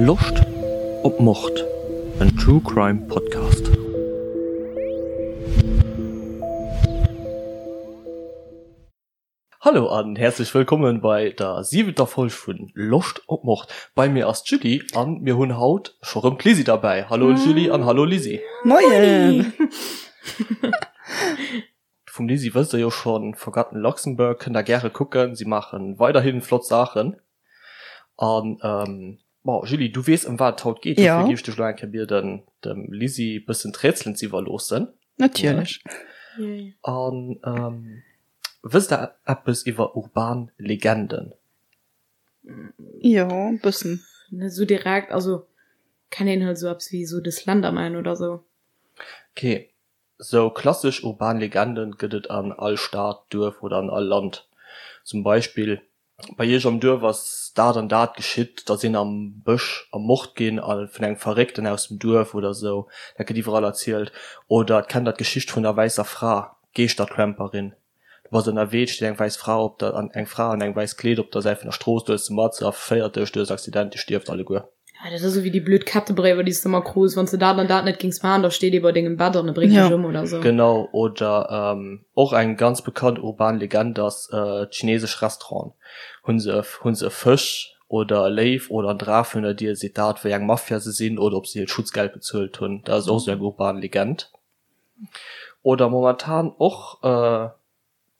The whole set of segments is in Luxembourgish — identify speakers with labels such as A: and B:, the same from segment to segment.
A: Loscht op Mord? En True Crime Podcast. Hallo an häerzlech wëllkommen bei der siwenter Folg vun Loscht op Mord. Bei mir ass d'Julie an mir hunn haut scho rëm d'Lisi derbäi. Hallo Julie an hallo Lisi.
B: Moien!
A: Vum Lisi wësst der jo schonn, Forgotten Luxembourg kënnt der gäre kucken, si maachen weiderhin flott Saachen. An bon Julie, du weess ëm wat et haut geet, dofir géif ech dech elo eng Kéier bieden dem Lisi bëssen d'Rätselen ze iwwerloossen.
B: Natierlech.
A: An wësst der eppes iwwer urban Legenden?
B: Jo, e bëssen.
C: Net esou direkt, also kennt een halt esou eppes wéi esou de Slenderman oder esou.
A: Ok, Sou klassesch urban Legenden gëtt et an all Stad, Duerf oder an all Land. Zum Beispill, Bei iech am Duerf ass dat an dat geschitt, da sinn am Bësch ermort ginn a vun engem Verréckten aus dem Duerf oder sou. Dat gëtt iwwerall erzielt. Oder kennt der d'Geschicht vun der wäisser Fra, d'Geeschtertramperin? Du bass ënnerwee, et steet eng wäiss Fra op der, eng Fra an engem wäisst Kleed op der Säit vun der Strooss, du hëls se mat, se erféiert dech, du hues Accident, dir stierft alleguer.
C: Ja, dat ass esou wéi déi blöd Kettebréiwer, déi s de ëmmer krus, wann s de dat an dat net géings maachen, da steet ee bei dengem Bett an e bréngt dech ëm oder esou.
A: Genau, oder och eng ganz bekannt urban Legend ass d'chinesesch Restauranten. Hu se, hu se e Fësch oder e Léiw oder en Draf virun der Dier, seet dat, wéi eng Mafia se sinn oder ob se hiert Schutzgeld bezuelt hunn. Dat ass och esou eng urban Legend. Oder momentan och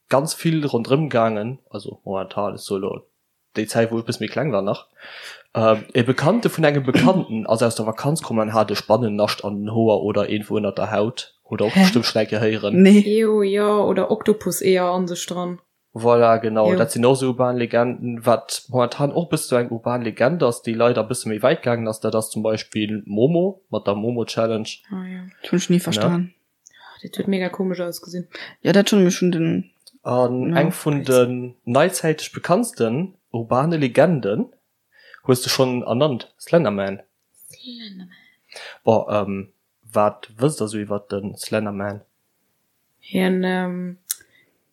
A: ganz vill ronderëm gaangen, also momentan, ech soe lo déi Zäit wou ech e bësse méi kleng war nach, e Bekannte vun engem Bekannten ass aus der Vakanz komm an hat e Spannennascht an den Hoer oder iergendwou ënnert der Haut, hutt der och bestëmmt schonn eng Kéier héieren.
B: Nee.
C: Ew, jo, oder Oktopus-Eeër an sech dran.
A: Voilà, genau, dat sinn och esou urban Legenden. Wat momentan och e bësse sou eng urban Legend ass, déi leider e bësse méi wäit gaangen ass, dat ass zum Beispill Momo mat der Momo Challenge.
C: Ah jo.
B: Dat hunn ech ni verstan.
C: Dat huet mega komesch ausgesinn.
B: Jo, dat schonn, mee ech hunn den.
A: An eng vun den neizäiteg bekanntsten urbane Legenden hues de schonn ernannt, Slenderman.
C: Slenderman.
A: Bon, wat wësst der sou iwwert de Slenderman?
C: Hien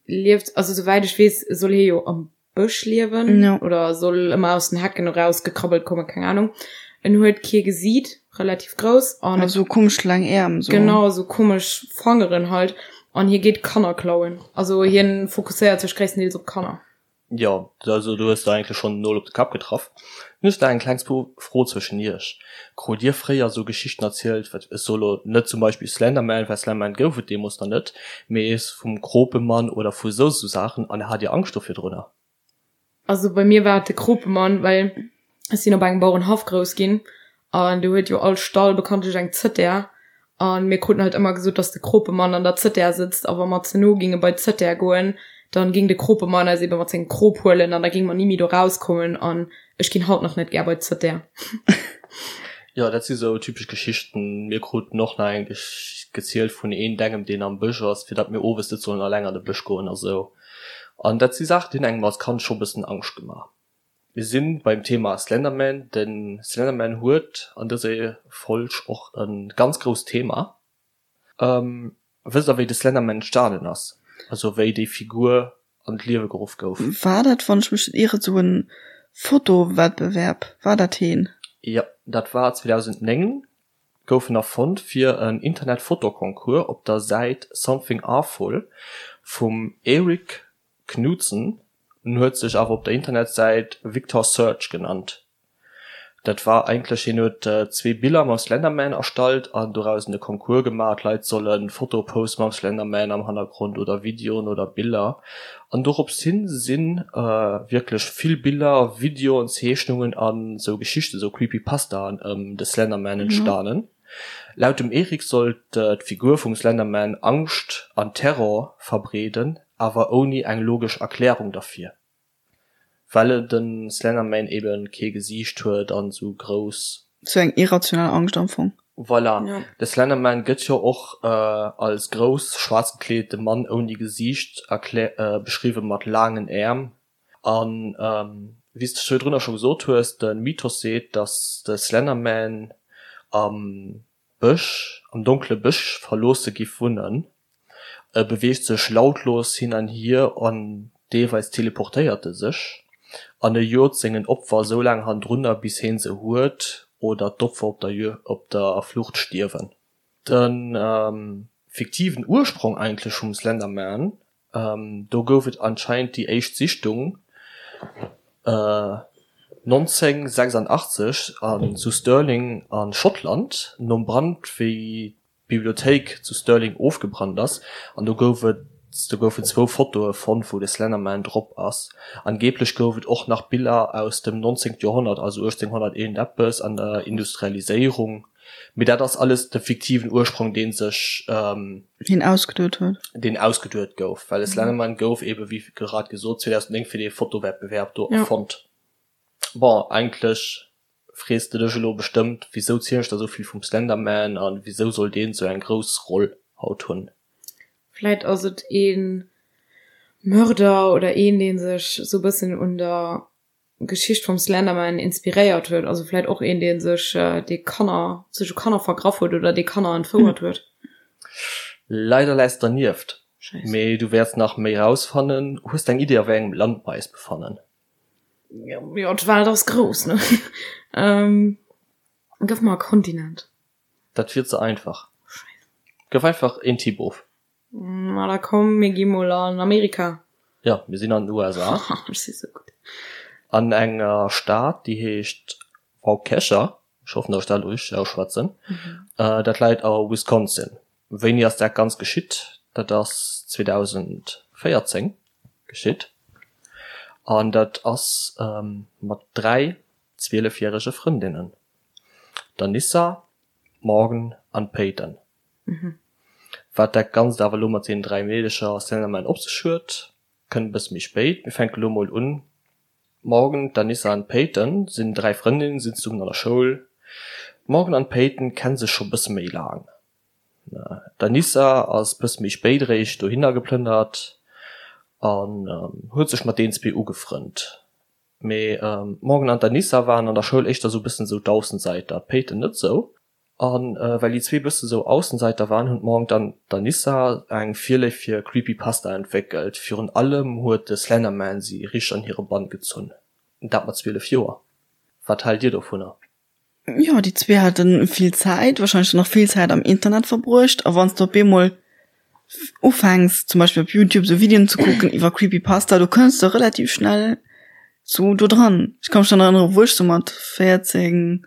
C: lieft, also souwäit ech weess, soll hie jo am Bësch liewen
B: ja.
C: oder soll ëmmer aus den Hecken eraus gekrabbelt kommen, keng Ahnung. En huet kee Gesiit, relativ grouss
B: an also komesch laang Äerm
C: so. Genau, sou komesch Fangeren halt an hie geet Kanner klauen. Also hien fokusséiert sech gréisstendeels op Kanner.
A: Jo, also du hues der eigentlech schonn den Nol op de Kapp getraff. Nun hues der eng kleng Fro zwëschen iech. Krut dir fréier sou Geschichten erzielt, wat ech soe lo net zum Beispill Slenderman, well Slenderman gouf et deemoos nach net, mee vum Kropemann oder vu sou sou Saachen an hat dir Angscht do virdrunner?
C: Also bei mir war et de Kropemann, well ech sinn op engem Bauerenhaff grouss ginn an do huet jo all Stall bekanntlech eng Zëttär an mir kruten halt ëmmer gesot, dass de Kropemann an der Zëttär sëtzt a wa mer ze no ginge bei d'Zëttär goen, dann ging de Kropemann eis ebe mat sengem Krop huelen an da ginge mer ni méi do rauskommen an ech ginn haut nach net gär bei d'Zëttär.
A: Jo, dat si sou typesch Geschichten. Mir kruten och nach eng gezielt vun een dengem, deen am Bësch ass, fir datt mir owes net sollen alleng an de Bësch goen a sou. An dat si Saachen, déi hunn engem als Kand scho bëssen Angscht gemaach. Mir si beim Thema Slenderman. De Slenderman huet an dëser Folg och e ganz grousst Thema. Wësst der wéi de Slenderman entstanen ass? Also wéi déi Figur an d'Liewe geruff gouf?
B: War dat, wann ech mech net ieren, sou en Fotowettbewerb? War dat heen?
A: Jo, dat war 2009 gouf en erfonnt fir en Internet-Fotoconcours op der Säit Something Awful vum Eric Knudsen. En huet sech awer op der Internetsäit Victor Surge genannt. Dat war eigentlech, hien huet zwee Biller mam Slenderman erstallt an dorausen e Concours gemaach, d'Leit solle Fotoe poste mam Slenderman am Hannergrond oder Videoen oder Biller. An dorops hin si wierklech vill Biller, Videoen, Zeechnungen an sou Geschichten, sou Creepypastaen ëm de Slenderman entstanen. Laut dem Eric sollt d'Figur vum Slenderman Angscht an Terror verbreeden, awer ouni eng logesch Erklärung derfir. Well den Slenderman eben kee Gesiicht huet an sou grouss.
B: Sou eng irrational Angscht am Fong.
A: Voilà, de Slenderman gëtt jo och als grouss, schwaarz gekleedete Mann ouni Gesiicht beschriwwen, mat laangen Äerm. An wéi s de virdrunner scho gesot hues, de Mythos seet, dass de Slenderman am Bësch, am donkele Bësch verloosse giff wunnen. E beweegt sech lautlos hin an hier an deelweis teleportéiert e sech an e jot sengen Opfer soulaang hannendrunner bis heen se huet. oder d'Opfer op der op der Flucht stierwen. De fiktiven Ursprong eigentlech vum Slenderman, do gouf et anscheinend déi éischt Sichtung 1986 an zu Stirling a Schottland nom Brand wéi d'Bibliothéik zu Stirling ofgebrannt ass an do gouf et do goufen zwou Fotoe fonnt wou de Slenderman drop ass. Angeblech gouf et och nach Biller aus dem 19. Joerhonnert, also 1800 iergendeppes an der Industrialiséierung, mee dat ass alles de fiktiven Ursprong dee sech
B: Deen ausgeduet huet.
A: Deen ausgeduet gouf, well de Slenderman gouf ebe wéi grad gesot 2009 fir dee Fotowettbewerb do erfonnt. Bon, eigentlech frees de dech elo bestëmmt, wisou zielen ech der esou vill vum Slenderman an wisou soll deen esou eng grouss Roll haut hunn?
C: Vläit ass et ee Mörder oder een, dee sech esou bëssen un der Geschicht vum Slenderman inspiréiert huet. Also vläit och een, dee sech, dee Kanner, sech u Kanner vergraff huet oder dee Kanner entfouert huet.
A: Leider läis dernieft, mee du wäerts nach méi rausfannen. Hues de eng Idee a wéi engem Land mer eis befannen?
C: Jo, d'Welt ass grouss, ne? Gëff mer e Kontinent.
A: Dat wier ze einfach. Scheiss. Gëff einfach een Tipp of.
C: Ma da komm, mir gi mol an Amerika.
A: Jo, mir sinn an den USA.
C: Ech si sou gutt.
A: An enger Stad, déi heescht Waukesha. Ech hoffen, datt ech dat elo richteg ausschwätzen. Dat läit a Wisconsin. Wéini ass dat Ganzt geschitt? Dat ass 2014 geschitt an dat ass mat 3 zwielefjärege Frëndinnen, der Nissa, Morgan an Peyton. Wat dat Ganzt awer elo mat deenen 3 Meedecher a Slenderman op sech huet, kënnt e bësse méi spéit. Mir fänke lo mol un. D'Morgan, d'Anissa an d'Peyton sinn 3 Frëndinnen, sinn zesummen an der Schoul. D'Morgan an d'Peyton kenne sech scho bësse méi laang. D'Anissa ass bësse méi spéit eréischt dohinner geplënnert an huet sech mat deenen zwee ugefrënnt. Mee d'Morgan an d'Anissa waren an der Schoul éischter sou bëssen sou d'Aussenseiter, d'Peyton net sou. A well déi zwee bësse sou Aussenseiter waren, hunn d'Morgan an d'Anissa eng Virléift fir Creepypasta entwéckelt. Virun allem huet de Slenderman si richteg an hire Bann gezunn. Dat mat 12 Joer. Wat haalt dir dovunner?
B: Jo, déi zwee hate vill Zäit, warscheinlech dann och vill Zäit am Internet verbruecht. A wann s de op eemol ufänks, zum Beispill op Youtube sou Videoen ze kucken iwwer Creepypasta, do kënns de relativ schnell sou do dran. Ech ka mech dann erënnere wou ech sou mat 14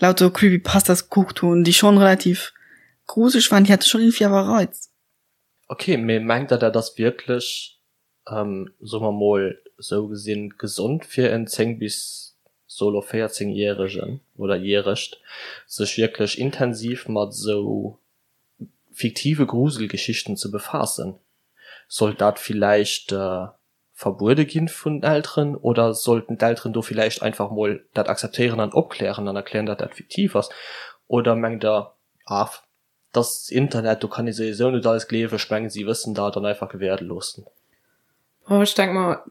B: lauter Creepypastas gekuckt hunn, déi schonn relativ gruseleg waren, déi hate schonn iergendwéi awer e Reiz.
A: Ok, mee mengt der dat ass wierklech, soe mer mol sou gesinn, gesond fir en 10 bis solo 14 järegen oder järegt sech wierklech intensiv mat sou fiktive Gruselgeschichten ze befaassen? Sollt dat villäicht verbuede ginn vun den Elteren oder sollten d'Elteren do villäicht einfach mol dat akzeptéieren an opklären an erklären, datt dat fiktiv ass? Oder mengt der, ah, et ass Internet, do kann ee souwisou net alles gleewen, ech mengen si wëssen dat an einfach gewäerde loossen?
C: Boah, ech denk mer,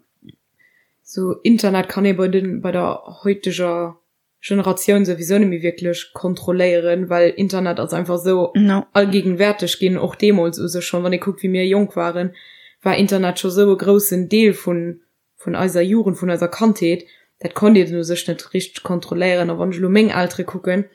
C: sou Internet kann ee bei den, bei der heuteger Generatioun souwisou net méi wierklech kontrolléieren, well Internet ass einfach esou allgegenwärteg ginn, och deemools u sech schonn, wann ee kuckt wéi mir jonk waren, war Internet scho sou e groussen Deel vun vun eiser Jugend, vun eiser Kandheet, dat konnt een u sech net richteg kontrolléieren. A wann ech elo meng Eltere kucken,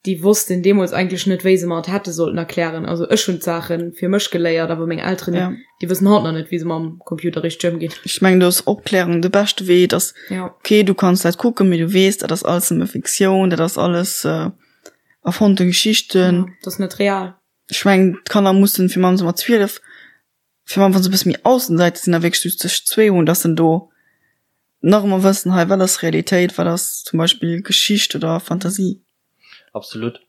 C: déi wossten deemools eigentlech net, wéi se mer et hätte sollten erklären. Also ech hunn d'Saache fir mech geléiert, awer meng Elteren, ja. déi wëssen haut nach net, wéi se mam Computer richteg ëmginn.
B: Ech mengen, do ass Opklärung de beschte Wee, dass, ja. okay, du kanns dat kucken, mee du weess, dat ass alles nëmme Fiktioun, dat ass alles äh, erfonnte Geschichten.
C: Ja, dat ass net real.
B: Ech mengen, d'Kanner mussen fir mannst mat 12 fir wann se e bësse méi Aussenseiter sinn a wierklech just sech zwee hunn, dass se do nach ëmmer wëssen, hei wat ass Realitéit, wat ass zum Beispill Geschicht oder Fantasie.
A: Absolut.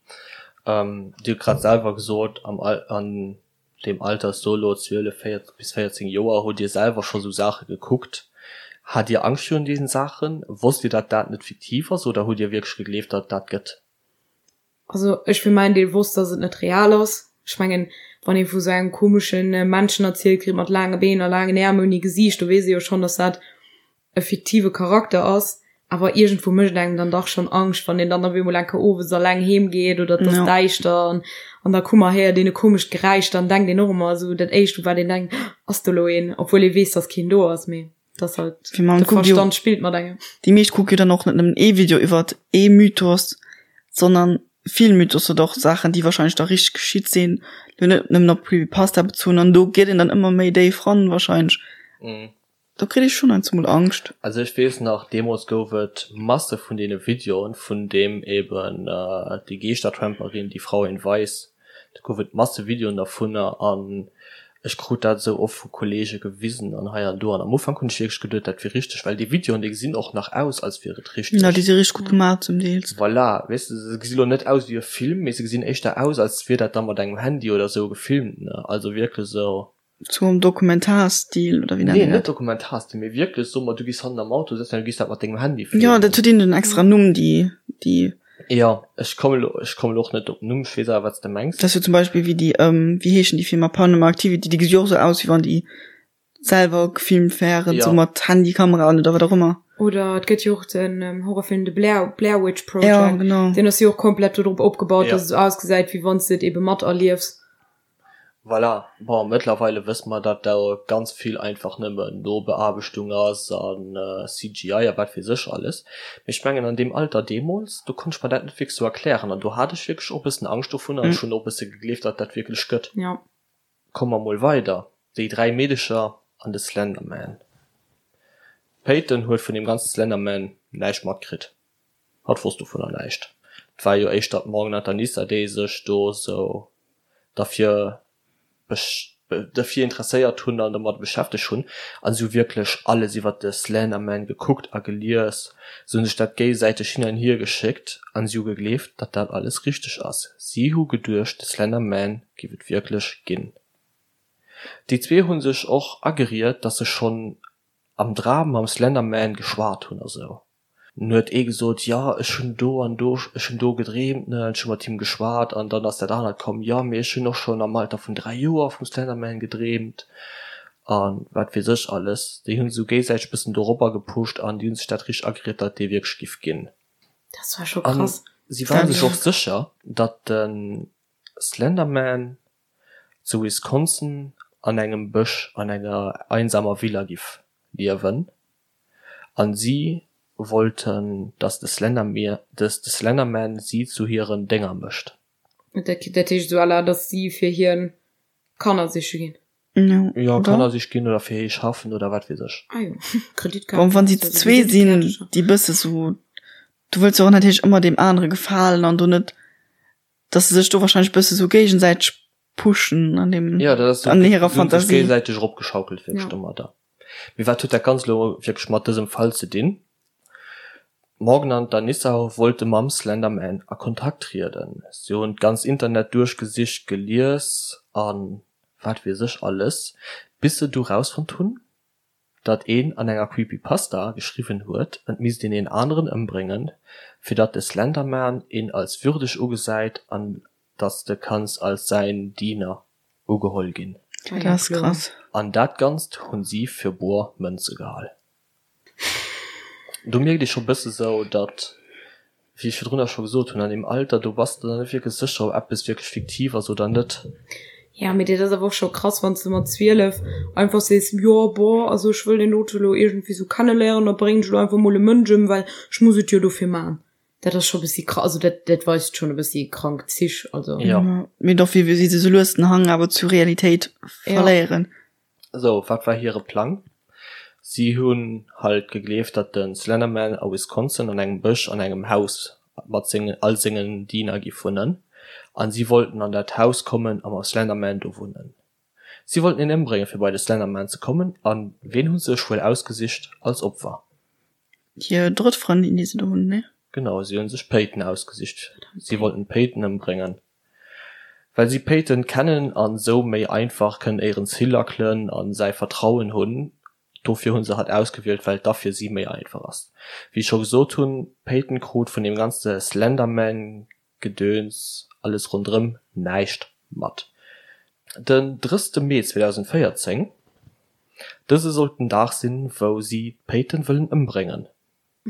A: Dir hutt grad selwer gesot, am Al an deem Alter solo 12, 14 bis 14 Joer hutt Dir selwer scho sou Saache gekuckt. Hat Dir Angscht virun diesen Saachen? Wosst Dir, datt dat net fiktiv ass oder hutt Dir wierklech gegleeft, datt et dat gëtt?
C: Also ech fir mäin Deel wosst, dass et net real ass. Ech mengen, wann ee vu sou engem komesche Männchen erzielt kritt mat laange Been a laangen Äerm ouni Gesiicht, do weess ee jo schonn, dass dat e fiktive Charakter ass. Awer iergendwou mécht et engem dann dach schonn Angscht, wann een dann op eemol eng Kéier owes alleng heem geet oder et ass däischter an an der Kummer héiert een e komescht Geräisch, dann denkt een och ëmmer esou dat éischt u wat een denkt, Ass do elo een? Obwuel ee weess, dass keen do ass, mee. Dat ass halt,
B: Fir man
C: de
B: kuckt jo,
C: Verstand spillt mat engem.
B: déi meescht kucke jo dann och net nëmmen ee Video iwwert ee Mythos. Sondern vill Mythos oder och Saachen, déi wahrscheinlech da richteg geschitt sinn, lo net nëmmen op Creepypasta bezunn an do geet een dann ëmmer méi déif ran wahrscheinlech. Do kritt ee schonn heiansdo mol Angscht.
A: Also ech weess nach, deemools gouf et Masse vun deene Videoen, vun deem eben déi Geeschtertramperin, déi Frau in Weiß, do gouf et Masse Videoen dervunner an ech krut dat esou oft vu Kollege gewisen an hei an do an am Ufank hunn ech wierklech geduet, dat wier richteg, well déi Videoen, déi gesinn och nach aus, als wier et richteg.
B: Ja, déi si richteg gutt gemaach zum Deels.
A: Voilà, weess de, se gesi lo net aus wéi e Film, mee se gesinn éischter aus, als wier dat da mat engem Handy oder esou gefilmt, ne, also wierklech esou.
B: Sou am Dokumentarstil oder wéi
A: nennt een dat? Nee, net Dokumentarstil, mee wierklech soe mer, du gees hannen am Auto sëtzen an du gees dat mat dengem Handy
B: filmen. Jo, dat huet een en extra Numm, déi, déi.
A: Jo, ech komme lo, ech komme lo och net op den Numm, ech weess awer wat s de mengs.
B: Dat ass jo zum Beispill wéi déi, wéi heeschen déi Filmer, Paranormal Activity, déi gesi jo och sou aus, wéi wann déi selwer gefilmt wären, sou mat Handykamera an oder wat och ëmmer.
C: Oder et gëtt jo och den Horrorfilm The Blair, Blair Witch Project. Jo, genau. Deen ass jo och komplett dodrop opgebaut, dass et sou ausgesäit, wéi wann s de et ebe materliefs.
A: Voilà, bon mëttlerweile wësse mer datt do ganz vill einfach nëmmen Nobeaarbechtung ass an CGI a wat weess ech alles, mee ech mengen an deem Alter deemools, do konnt ech mer dat net wierklech sou erklären an do hat ech wierklech och e bëssen Angscht dovun an ech hunn och e bësse gegleeft datt dat wierklech gëtt. Komme mer mol weider, déi 3 Meedecher an de Slenderman. D'Peyton huet vun deem ganze Slenderman näischt matkritt. Hatt wosst dovunner näischt. Et war jo éischter d'Morgan an d'Anissa, déi sech do sou derfir derfir interesséiert hunn an domat beschäftegt hunn. An si hu wierklech alles iwwer de Slenderman gekuckt a gelies. Si hu sech dat géigesäiteg hin an hier geschéckt an si hu gegleeft, datt dat alles richteg ass. Si hu geduecht, de Slenderman géif et wierklech ginn. Déi zwee hu sech och ageriet, datt se schonn am Dram mam Slenderman geschwat hunn a sou. Dunn huet ee gesot, jo ech hunn do an do, ech hunn do gedreemt, ne, ech hu mat him geschwat an dann ass dat anert komm, jo mee ech hunn och schonn am Alter vun 3 Joer vum Slenderman gedreemt a wat weess ech alles. Déi hunn sou géisäiteg bëssen doropper gepusht an déi hunn sech dat richteg ageriet, datt dee wierklech giff ginn.
C: Dat war scho krass.
A: An si ware sech och sécher, datt de Slenderman zu Wisconsin an engem Bësch an enger einsamer Villa giff liewen. An si wollten dass de Slenderman si zu hiren Dénger mécht.
C: Dat heescht esou à la, dass si fir hien Kanner siche ginn?
A: Jo, Kanner siche ginn oder fir hie schaffen oder wat weess ech.
C: Ah jo,
B: Kreditkaart. Bon, wann si zu zwee sinn, déi bësse sou, du wëlls jo och natierlech ëmmer deem anere gefalen an do net, dass se sech do wahrscheinlech bësse sou géigesäiteg pushen an deem,
A: Ja, dat ass
B: an hirer Fantasie.
A: Géigesäiteg eropgeschaukelt wierklech domadder. Mee wat huet dat Ganzt elo wierklech mat dësem Fall ze dinn? D'Morgan an d'Anissa wollte mam Slender Man a Kontakt trieden. Si hunn d'ganzt Internet duerchgesicht, gelies a wat weess ech alles, bis se du rausfonnt hunn, datt een an enger Creepypasta geschriwwen huet, et misst een een aneren ëmbréngen, fir datt de Slender Man een als würdeg ugesäit an datt s de kanns als säin Diener ugeholl ginn.
B: Dat ass krass.
A: An dat Ganzt hunn si fir boer Mënze gehal. Do mierkt ee scho bësse sou, datt, wéi ech virdrunner scho gesot hunn, an deem Alter, do bass de der net wierklech sécher, ob eppes wierklech fiktiv ass oder net.
C: Ja, mee dat ass awer och scho krass, wann s de mat 12 einfach sees, jo, boah, also ech wëll deen dote lo iergendwéi sou kenneléieren, da bréngen ech lo einfach mol e Mënsch ëm, well ech muss et jo dofir man. Dat ass scho bëssi krass, also dat, dat weist schonn e bëssi krank Zich, also.
A: Ja.
B: Mee doch, wéi si sou lues den Hang awer zur Realitéit verléieren.
A: Sou, wat war hire Plang? Si hunn halt gegleeft, datt de Slenderman a Wisconsin an engem Bësch an engem Haus mat sengen all sengen Diener giff wunnen, an si wollten an dat Haus kommen a mam Slenderman do wunnen. Si wollten hien ëmbréngen fir bei de Slenderman ze kommen, an ween hu sech wuel ausgesicht als Opfer?
B: Hir drëtt Frëndin, déi se do hunn, ne?
A: Genau, si hunn sech d'Peyton ausgesicht. Si wollten d'Peyton ëmbréngen, well si d'Peyton kennen an sou méi einfach kënnen éieren Zill lackelen an säi Vertrauen hunn. Dofir hunn se hatt ausgewielt, well et da fir si méi einfach ass. Wéi ech scho gesot hunn, d'Peyton krut vun deem ganze Slenderman Gedöns, alles ronderëm näischt mat. Den 30 Mee 2014, dëse sollt den Dag sinn, wou si d'Peyton wëllen ëmbréngen.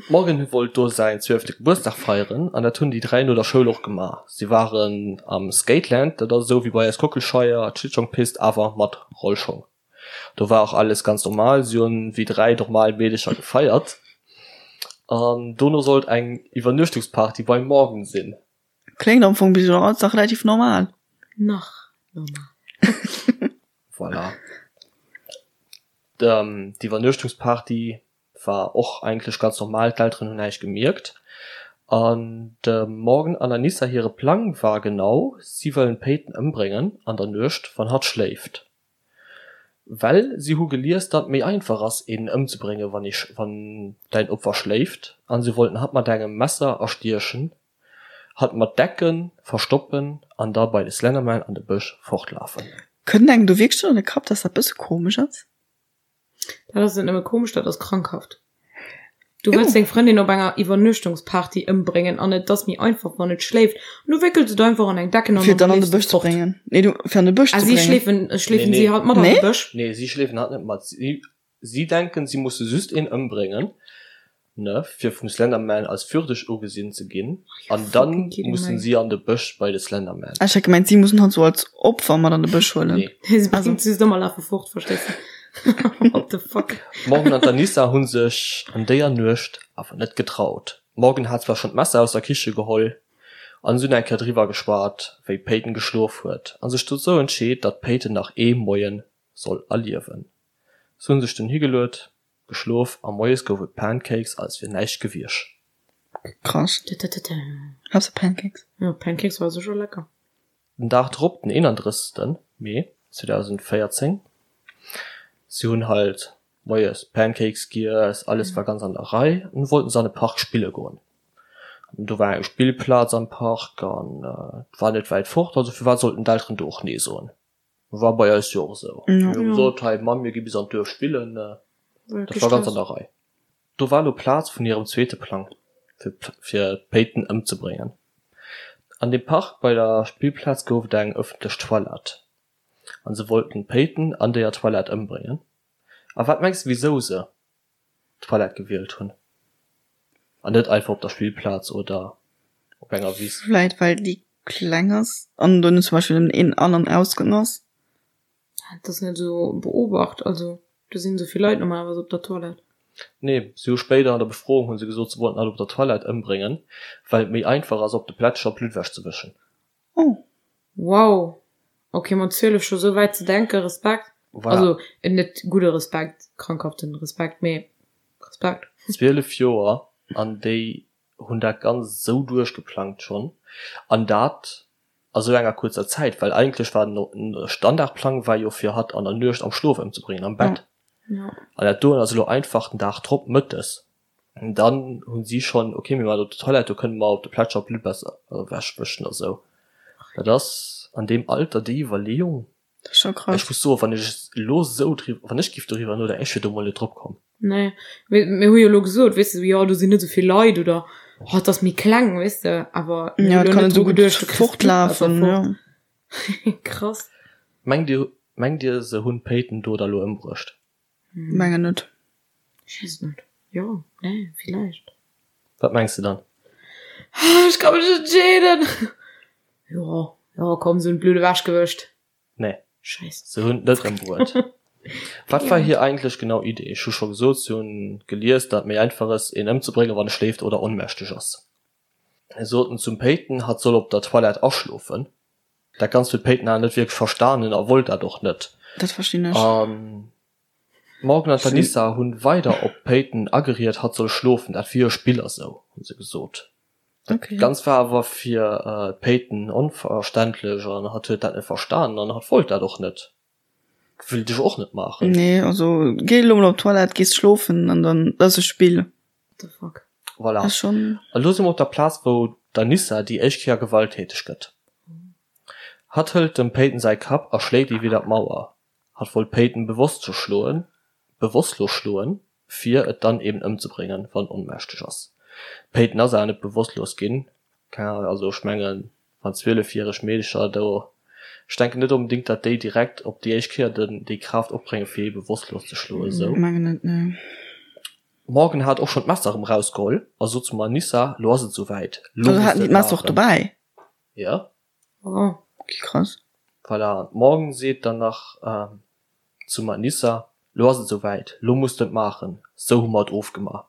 A: D'Morgan wollt do säin zwielfte Gebuertsdag feieren an dat hunn déi 3 no der Schoul och gemaach. Si waren am Skateland, dat ass esou wéi bei eis Kockelscheier, d'Schlittschongpist awer mat Rollschong. Do war och alles ganz normal, si hunn wéi 3 normal Meedecher gefeiert an dono sollt eng Iwwernuechtungsparty beim Morgan sinn.
B: Kléngt am Fong bis elo alles nach relativ normal.
C: Nach normal.
A: Voilà. D'Iwwernuechtungsparty war och eigentlech ganz normal, d'Elteren hunn näischt gemierkt. An dem Morgan an Anissa hire Plang war genau, si wëllen d'Peyton ëmbréngen an der Nuecht, wann hatt schléift. Well si hu gelies, datt et méi einfach ass, een ëmzebréngen, wann ee wann däin Opfer schléift. An si wollten hatt mat engem Messer erstiechen, hatt mat Decken verstoppen an da bei de Slenderman an de Bësch fortlafen.
B: Kënnt engem do wierklech an de Kapp, dass dat bësse komesch ass?
C: Dat ass net nëmme komesch, dat ass krankhaft. Du wëlls deng Frëndin op enger Iwwernuechtungsparty ëmbréngen an et ass méi einfach wann et schléift an du wéckels et einfach an eng Decken
B: an dann an de Bësch ze bréngen. Nee, du fir an de Bësch ze
C: bréngen. Ah, si schleefen, schleefen si halt mat an de Bësch?
A: Nee, si schleefen hatt net mat. Si, si denken, si musse just een ëmbréngen, ne, fir vum Slenderman als würdeg ugesinn ze ginn an dann mussen si an de Bësch bei de Slenderman.
B: Ah, ech hat gemengt, si mussen hatt sou als Opfer mat an de Bësch huelen.
C: Nee. Si bréngt se just ëm a lafe fort, verstees de? What the fuck?
A: D'Morgan an d'Anissa hu sech an déier Nuecht awer net getraut. D'Morgan hat zwar schonn d'Messer aus der Kiche geholl an se hunn eng Kéier driwwer geschwat, wéi d'Peyton geschlof huet a sech dozou entscheet, datt d'Peyton nach ee Moie soll erliewen. Se hu sech dunn higeluet, geschlof a moies gouf et Pancakes als wier näischt gewiesch.
B: Krass. Haas de Pancakes?
C: Jo, Pancakes war secher lecker.
A: Den Dag drop, den 31. Mee 2014, si hunn halt moies Pancakes giess, alles war ganz an der Rei, an wollten se an de Park spille goen. An do war eng Spillplaz am Park an et war net wäit fort, also firwat sollten d'Elteren do och nee soen? War bei eis jo och esou. Mir hu gesot, hei Mamm, mir gi bis an d'Duerf spillen. Dat war ganz an der Rei. Do war elo Plaz vun hirem zweete Plang, fir fir d'Peyton ëmzebréngen. An deem Park bei der Spillplaz gouf et eng ëffentlech Toilette an se wollten d'Peyton an déier Toilette ëmbréngen. A wat mengs de wisou se d'Toilette gewielt hunn an net einfach op der Spillplaz oder op enger Wiss?
B: Vläit well déi kleng ass an do net zum Beispill nëmmen een An an Ausgang ass.
C: Dat ass net esou beobacht, also do sinn esou vill Leit normalerweis op der Toilette.
A: Nee, si hu spéider an der Befroung hu se gesot, se wollten hatt op der Toilette ëmbréngen, well et méi einfach ass op de Plätscher Blutt ewech ze wëschen.
B: Oh.
C: Wow, ok mat 12 scho sou wäit ze denken, Respekt.
A: Voilà.
C: Also net gudde Respekt, krankhaften Respekt, mee Respekt.
A: 12 Joer an déi hunn dat Ganzt esou duerchgeplangt schonn an dat a sou enger kuerzer Zäit, well eigentlech war den Standardplang war jo fir hatt an der Nuecht am Schlof ëmzebréngen, am Bett. An dat doen ass elo einfach den Dag drop mëttes. An dann hunn si schonn, okay mir waren op der Toilette, do kënne mer op de Plätscher Blutt besser ewechwëschen a sou. Dat ass an deem Alter déi Iwwerleeung.
B: Dat ass scho krass.
A: Ech muss soen, wann ech elo esou driwwer, wann ech giff doriwwer nodenken, ech wier do mol net drop komm.
C: Nee, mee mir hu jo elo gesot, weess de, jo do sinn net esou vill Leit oder oh et ass méi kleng, weess de, awer
B: mir
C: hu
B: Ja, et
C: elo
B: kann
C: net
B: net esou
C: dru
B: gutt
C: geduecht, du kriss d'Blutt besser
B: fortlafen,
C: fort.
B: jo.
C: Krass.
A: Mengt dir, mengt dir se hunn d'Peyton do da lo ëmbruecht?
B: Mengen net.
C: Ech weess et net. Jo, nee, villäicht.
A: Wat mengs de dann?
C: Ech ka mech net entscheeden. Jo, jo, komm, se hunn d'Blutt ewechgewëscht.
A: Nee.
C: Scheiss.
A: Se hunn et net ëmbruet. Wat war hir eigentlech genau Idee? Ech hu scho gesot, se hunn gelies, datt et méi einfach ass, een ëmzebréngen, wann e schléift oder onmächteg ass. Se soten zum Peyton, hatt soll op der Toilette aschlofen. Dat Ganzt huet d'Peyton awer net wierklech verstanen a wollt dat och net.
B: Dat verstinn ech.
A: An d'Morgan an d'Anissa hunn weider op d'Peyton ageriet, hatt soll schlofen, dat wier e Spill a sou, hu se gesot. Dat Ganzt war awer fir d'Peyton onverständlech an hatt huet dat net verstanen an hatt wollt dat och net. Wéilt ech och net maachen.
B: Nee, also géi elo mol op d'Toilette, gees schlofen an dann, dat ass e Spill.
C: What the fuck?
A: Voilà.
B: Ass schon.
A: A lo si mer op der Plaz, wou d'Anissa déi éischt Kéier gewalttäteg gëtt. Hatt hëlt dem Peyton säi Kapp a schléit e widder d'Mauer. Hatt wollt d'Peyton bewosst ze schloen, bewosstlos schloen, fir et dann eben ëmzebréngen, wann et onmächteg ass. D'Peyton ass awer net bewosstlos ginn. Keng Ahnung, also ech mengen, wann zwielefjäreg Meedecher do, ech denken net onbedéngt, datt déi direkt op déi éischt Kéier den, déi Kraaft opbréngen, fir ee bewosstlos ze schloen, esou.
B: Mengen net, nee.
A: Morgan hat och schonn d'Messer erëm rausgeholl a sot zum Anissa, Lo ass et esou wäit, lo
B: Also
A: muss
B: haten
A: de
B: déi
A: et
B: d'Messer och
A: maachen.
B: dobäi?
A: Jo.
B: Oh, ok, krass.
A: Voilà, an d'Morgan seet dann nach zum Anissa, Lo ass et esou wäit, lo muss de et maachen, sou hu mer et ofgema.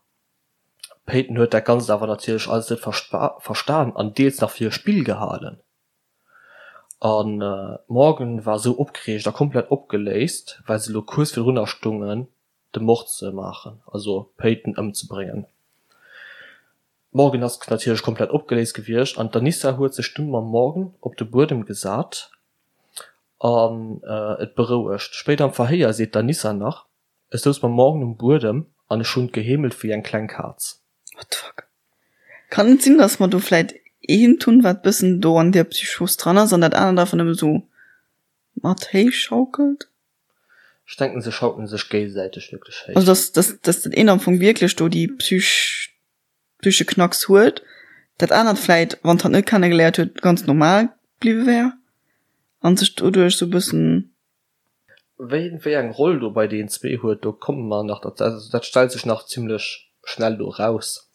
A: D'Peyton huet dat Ganzt awer natierlech alles net verstan an deels nach fir e Spill gehalen. An d'Morgan war sou opgereegt a komplett opgeléist, well se lo kuerz virdrunner stungen, de Mord ze maachen, also d'Peyton ëmzebréngen. D'Morgan ass natierlech komplett opgeléist gewiescht an d'Anissa huet sech dunn mam Morgan op de Buedem gesat an et berouegt. Spéider am Verhéier seet d'Anissa nach, Ech souz mam Morgan um Buedem an ech hunn geheemelt wéi eng kleng Kaz.
B: What the fuck? Kann et sinn, dass mer do vläit eent hunn, wat bëssen do an där Psychos dran ass an dat anert einfach nëmme sou mat héich schaukelt?
A: Ech denken, se schaukelen sech géigesäiteg wierklech
B: héich. Also dass, dass, dass dat eent am Fong wierklech do déi Psych, psyche Knacks huet, dat anert vläit, wann d'hatt net kennegeléiert huet, ganz normal bliwwe wär an sech doduerch sou bëssen.
A: Ween wéi eng Roll do bei deenen zwee huet, do komme mer nach derzou, also dat stellt sech nach zimlech schnell do eraus.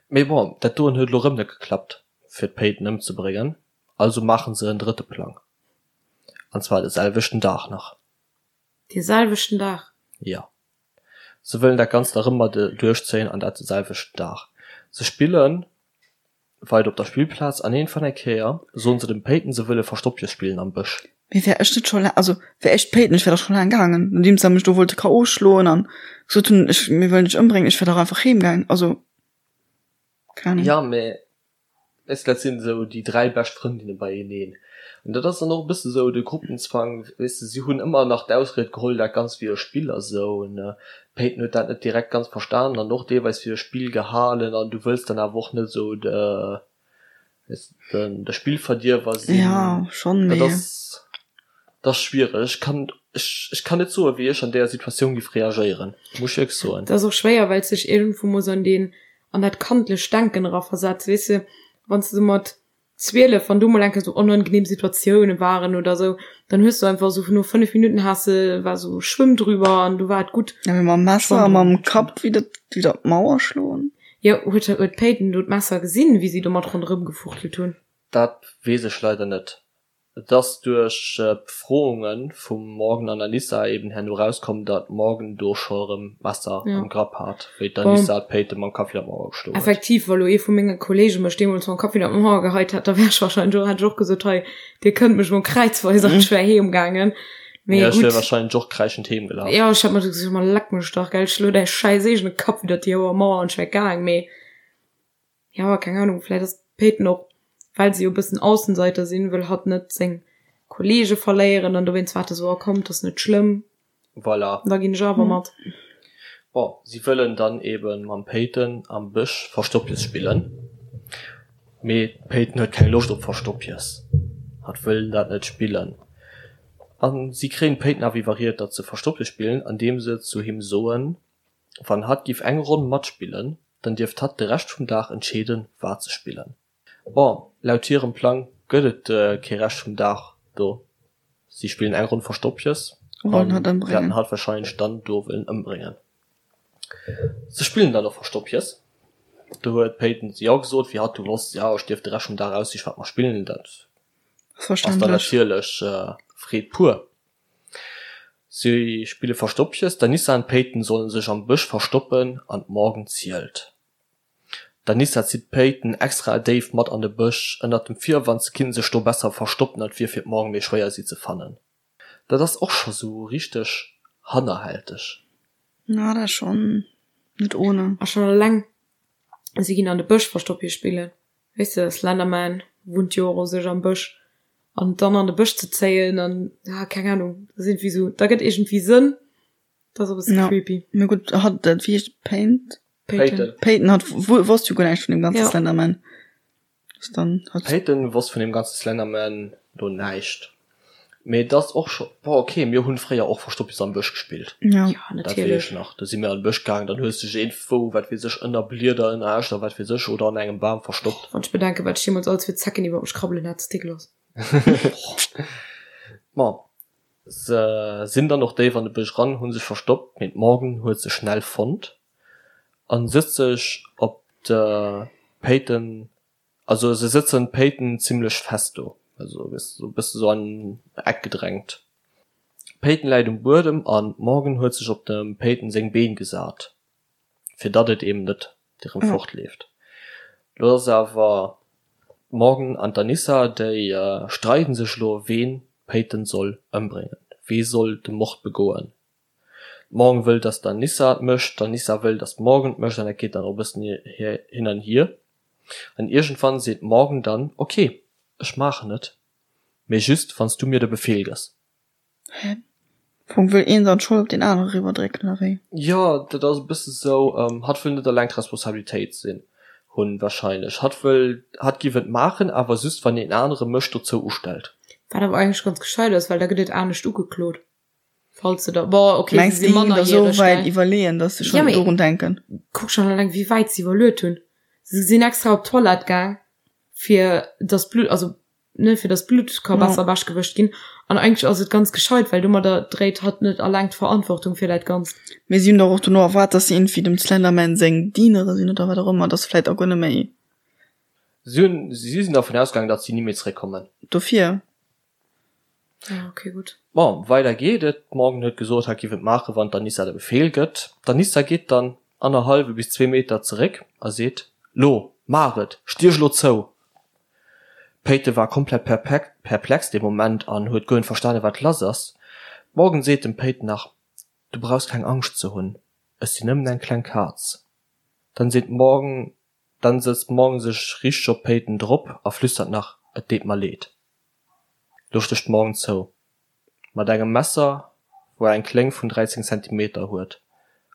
A: Mee bon, dat doen huet elo erëm net geklappt fir d'Peyton ëmzebréngen, also maachen se en drëtte Plang, an zwar de selwechten Dag nach.
C: Dee selwechten Dag?
A: Jo. Se wëllen dat Ganzt erëm mat duerchzéien an dat de selwechten Dag. Se spillen weider op der Spillplaz an iergendwann eng Kéier soen se dem Peyton se wëlle Verstoppjes spillen am Bësch.
B: Mee wär ech net scho laang, also wär ech d'Peyton, ech wär dach scho laang gaangen, nodeems se mech do wollte KO schloen an gesot hunn, ech, mir wëllen dech ëmbréngen, ech wär dach einfach heem gaangen, also
A: keng Ahnung. Ja, mee Weess de, dat sinn esou déi 3 bescht Frëndinne beieneen. An dat ass dann och e bësse sou de Gruppenzwang, weess de, si hunn ëmmer nach d'Ausried geholl, dat Ganzt wier e Spill a sou. An d'Peyton huet dat net direkt ganz verstanen an och deelweis fir e Spill gehalen. An du wëlls dann awer och net esou de, weess de, de Spillverdierwer sinn.
B: Jo, schonn,
A: Dat mee. ass, dat ass schwiereg. Ech kann, ech, ech kann net soen, wéi ech an deeër Situatioun giff reagéieren, muss ech wierklech soen.
C: Dat ass och schwéier, well s dech iergendwou muss an deen an dat kandlecht Denken eraversetzt, weess de, wann s de sou mat 12, wann do mol eng Kéier sou onangenehm Situatioune waren oder sou, dann hues du einfach sou no 5 Minuten has de, war sou Schwëmm drüber an du war et gutt.
B: Ja, mee mam Messer a mam Kapp widder, widder d'Mauer schloen?
C: Jo, huet, huet d'Peyton do d'Messer gesinn, wéi si domat ronderëm gefuchtelt hunn?
A: Dat weess ech leider net. Et ass duerch d'Befrounge vum Morgan an Anissa eben herno erauskomm, datt d'Morgan do scho erëm d'Messer am Grapp hat, wéi d'Anissa d'Peyton mam Kapp widder d'Mauer
C: geschloen huet. Effektiv, wa lo ee vu menge Kollege mech deemools mam Kapp widder d'Mauer geheit hätt, da wär ech warscheinlech och, hätt ech och gesot, hei, dir kënnt mech mol kräizweis an ech wär heem gaangen.
A: Mee gutt. Ja, ech wär warscheinlech och kräischend heem
C: gelaf. Jo, ech hätt mer gesot, ma leck mech dach, gell, schlo däi schäiss eegene Kapp widder déi hoer Mauer an ech wär gaang. Mee Jo, keng Ahnung, vläit ass d'Peyton och, well se jo e bëssen Aussenseiter sinn, wëll hatt net seng Kollege verléieren an dowéinst war et esou, oh komm, 't ass net schlëmm,
A: Voilà.
C: da ginn ech awer mat.
A: Bon, si wëllen dann eben mam Peyton am Bësch Verstoppjes spillen, mee d'Peyton huet keng Loscht op Verstoppjes, hatt wëll dat net spillen. A si kréien d'Peyton awer iwwerriet, datt se Verstoppjes spillen, andeem se zu him soen, Wann hatt giff eng Ronn matspillen, dann dierft hatt de Rescht vum Dag entscheeden, wat se spillen. Bon, laut hirem Plang gëtt et kee Rescht vum Dag do. Si spillen eng Ronn Verstoppjes an wäerten hatt warscheinlech dann do wëllen ëmbréngen. Se spillen dann och Verstoppjes. Do huet d'Peyton jo gesot, wéi hatt du wosst, jo ech dierf de Rescht vum Dag aussichen, wat mer spillen. Dat ass dann natierlech Freed pur. Si spille Verstoppches, d'Anissa an d'Peyton solle sech am Bësch verstoppen an d'Morgan zielt. D'Anissa zitt d'Peyton extra déif mat an de Bësch, ënnert dem Virwand se kinnte sech do besser verstoppen an et wier fir d'Morgan méi schwéier si ze fannen. Dat ass och scho sou richteg hannerhälteg.
B: Na, dat ass schonn net ohne.
C: A schonn eleng si ginn an de Bësch Verstoppche spillen. Weess de, Slenderman wunnt jo och u sech am Bësch. An dann an de Bësch ze zéien an, ah, keng Ahnung, dat ass iergendwéi sou, da gëtt iergendwéi Sënn. Dat ass e bësse
B: Ja.
C: creepy.
B: Mee gutt, hatt, dat, wéi heescht Paint?
A: Peyton.
B: Peyton hat wosst jo guer näischt vun deem ganze
C: Ja.
B: Slenderman. Ass dann
A: hat. Peyton wosst vun deem ganze Slenderman do näischt. Mee et ass och scho, bon ok, mir hunn fréier och Verstoppjes am Bësch gespillt.
B: Ja.
C: Ja,
A: Dat weess
C: natierlech.
A: ech nach. Do si mir an de Bësch gaangen, dann hues de dech iergendwou, wat weess ech, ënner Blieder, ënner Äscht a wat weess ech, oder an engem Bam verstoppt.
C: Wann ech bedenken, wat ech deemools alles fir Zecken iwwer mech krabbelen hat, ass dégueulass.
A: Bon, se sinn dann och déif an de Bësch ran, hu sech verstoppt, mee d'Morgan huet se schnell fonnt a sëtzt sech op de Peyton Also se sëtzen d'Peyton zimlech fest do, also e bësse sou an Eck gedrängt. D'Peyton läit um Buedem an d'Morgan huet sech op dem Peyton seng Been gesat. Fir datt et eben net erëm fortleeft. Lo ass awer d'Morgan an d'Anissa, déi streiden sech elo, ween d'Peyton soll ëmbréngen, wee soll de Mord begoen. D'Morgan wëll, datt d'Anissa et mécht, d'Anissa wëll, datt d'Morgan et mécht an dat geet dann och e bëssen hin an hier. An iergendwann seet d'Morgan dann, Ok, ech maachen et, mee just wann s du mir de Befeel gëss.
B: Hä? Am Fong wëll een dann d'Schold op deen anere riwwerdrécken, oder wéi?
A: Jo, dat ass e bësse sou, hatt wëll net eleng d'Responsabilitéit sinn, hunn wahrscheinlech. Hatt wëll, hatt giff et maachen, awer just wann een anere mech dozou ustellt.
C: Wat awer eigentlech ganz gescheit ass, well da gëtt et anescht ugeklot, falls se da, bon, ok,
B: se si mannerjäreg, gell? Mengst de, iwwerleeën, dass se schonn dorun denken?
C: Kuck schonn eleng, wéi wäit se iwwerluet hunn. Se sinn extra op d'Toilette gaang, fir dass d'Blutt, also ne, fir dass d'Blutt ka besser ewech gewëscht ginn. An eigentlech ass et ganz gescheit, well domadder dréit hatt net alleng d'Verantwortung fir dat Ganzt.
B: Mee si hunn dach och dono erwaart, dass si iergendwéi dem Slenderman seng Dienere sinn oder wat och ëmmer, dass se vläit och guer net méi.
A: Si hunn, si sinn dervun ausgaangen, datt si ni méi zeréckkommen.
B: Dofir.
C: Ah, okay, gutt.
A: Bon, weider geet et. D'Morgan huet gesot, hatt giff et maachen, wann d'Anissa de Befeel gëtt. D'Anissa geet dann annerhallwe bis zwee Meter zeréck a seet, Lo, maach et! Stiech lo zou! D'Peyton war komplett perplex dee Moment an huet guer net verstanen, wat lass ass. D'Morgan seet dem Peyton nach, Du brauchs keng Angscht ze hunn, ech sinn nëmmen eng kleng Kaz. Dann seet d'Morgan, dann sëtzt d'Morgan sech richteg op d'Peyton drop a flüstert nach, Et deet mer leed. Lo stécht d'Morgan zou. Mat engem Messer, wou eng Kléng vun 13 Zentimeter huet.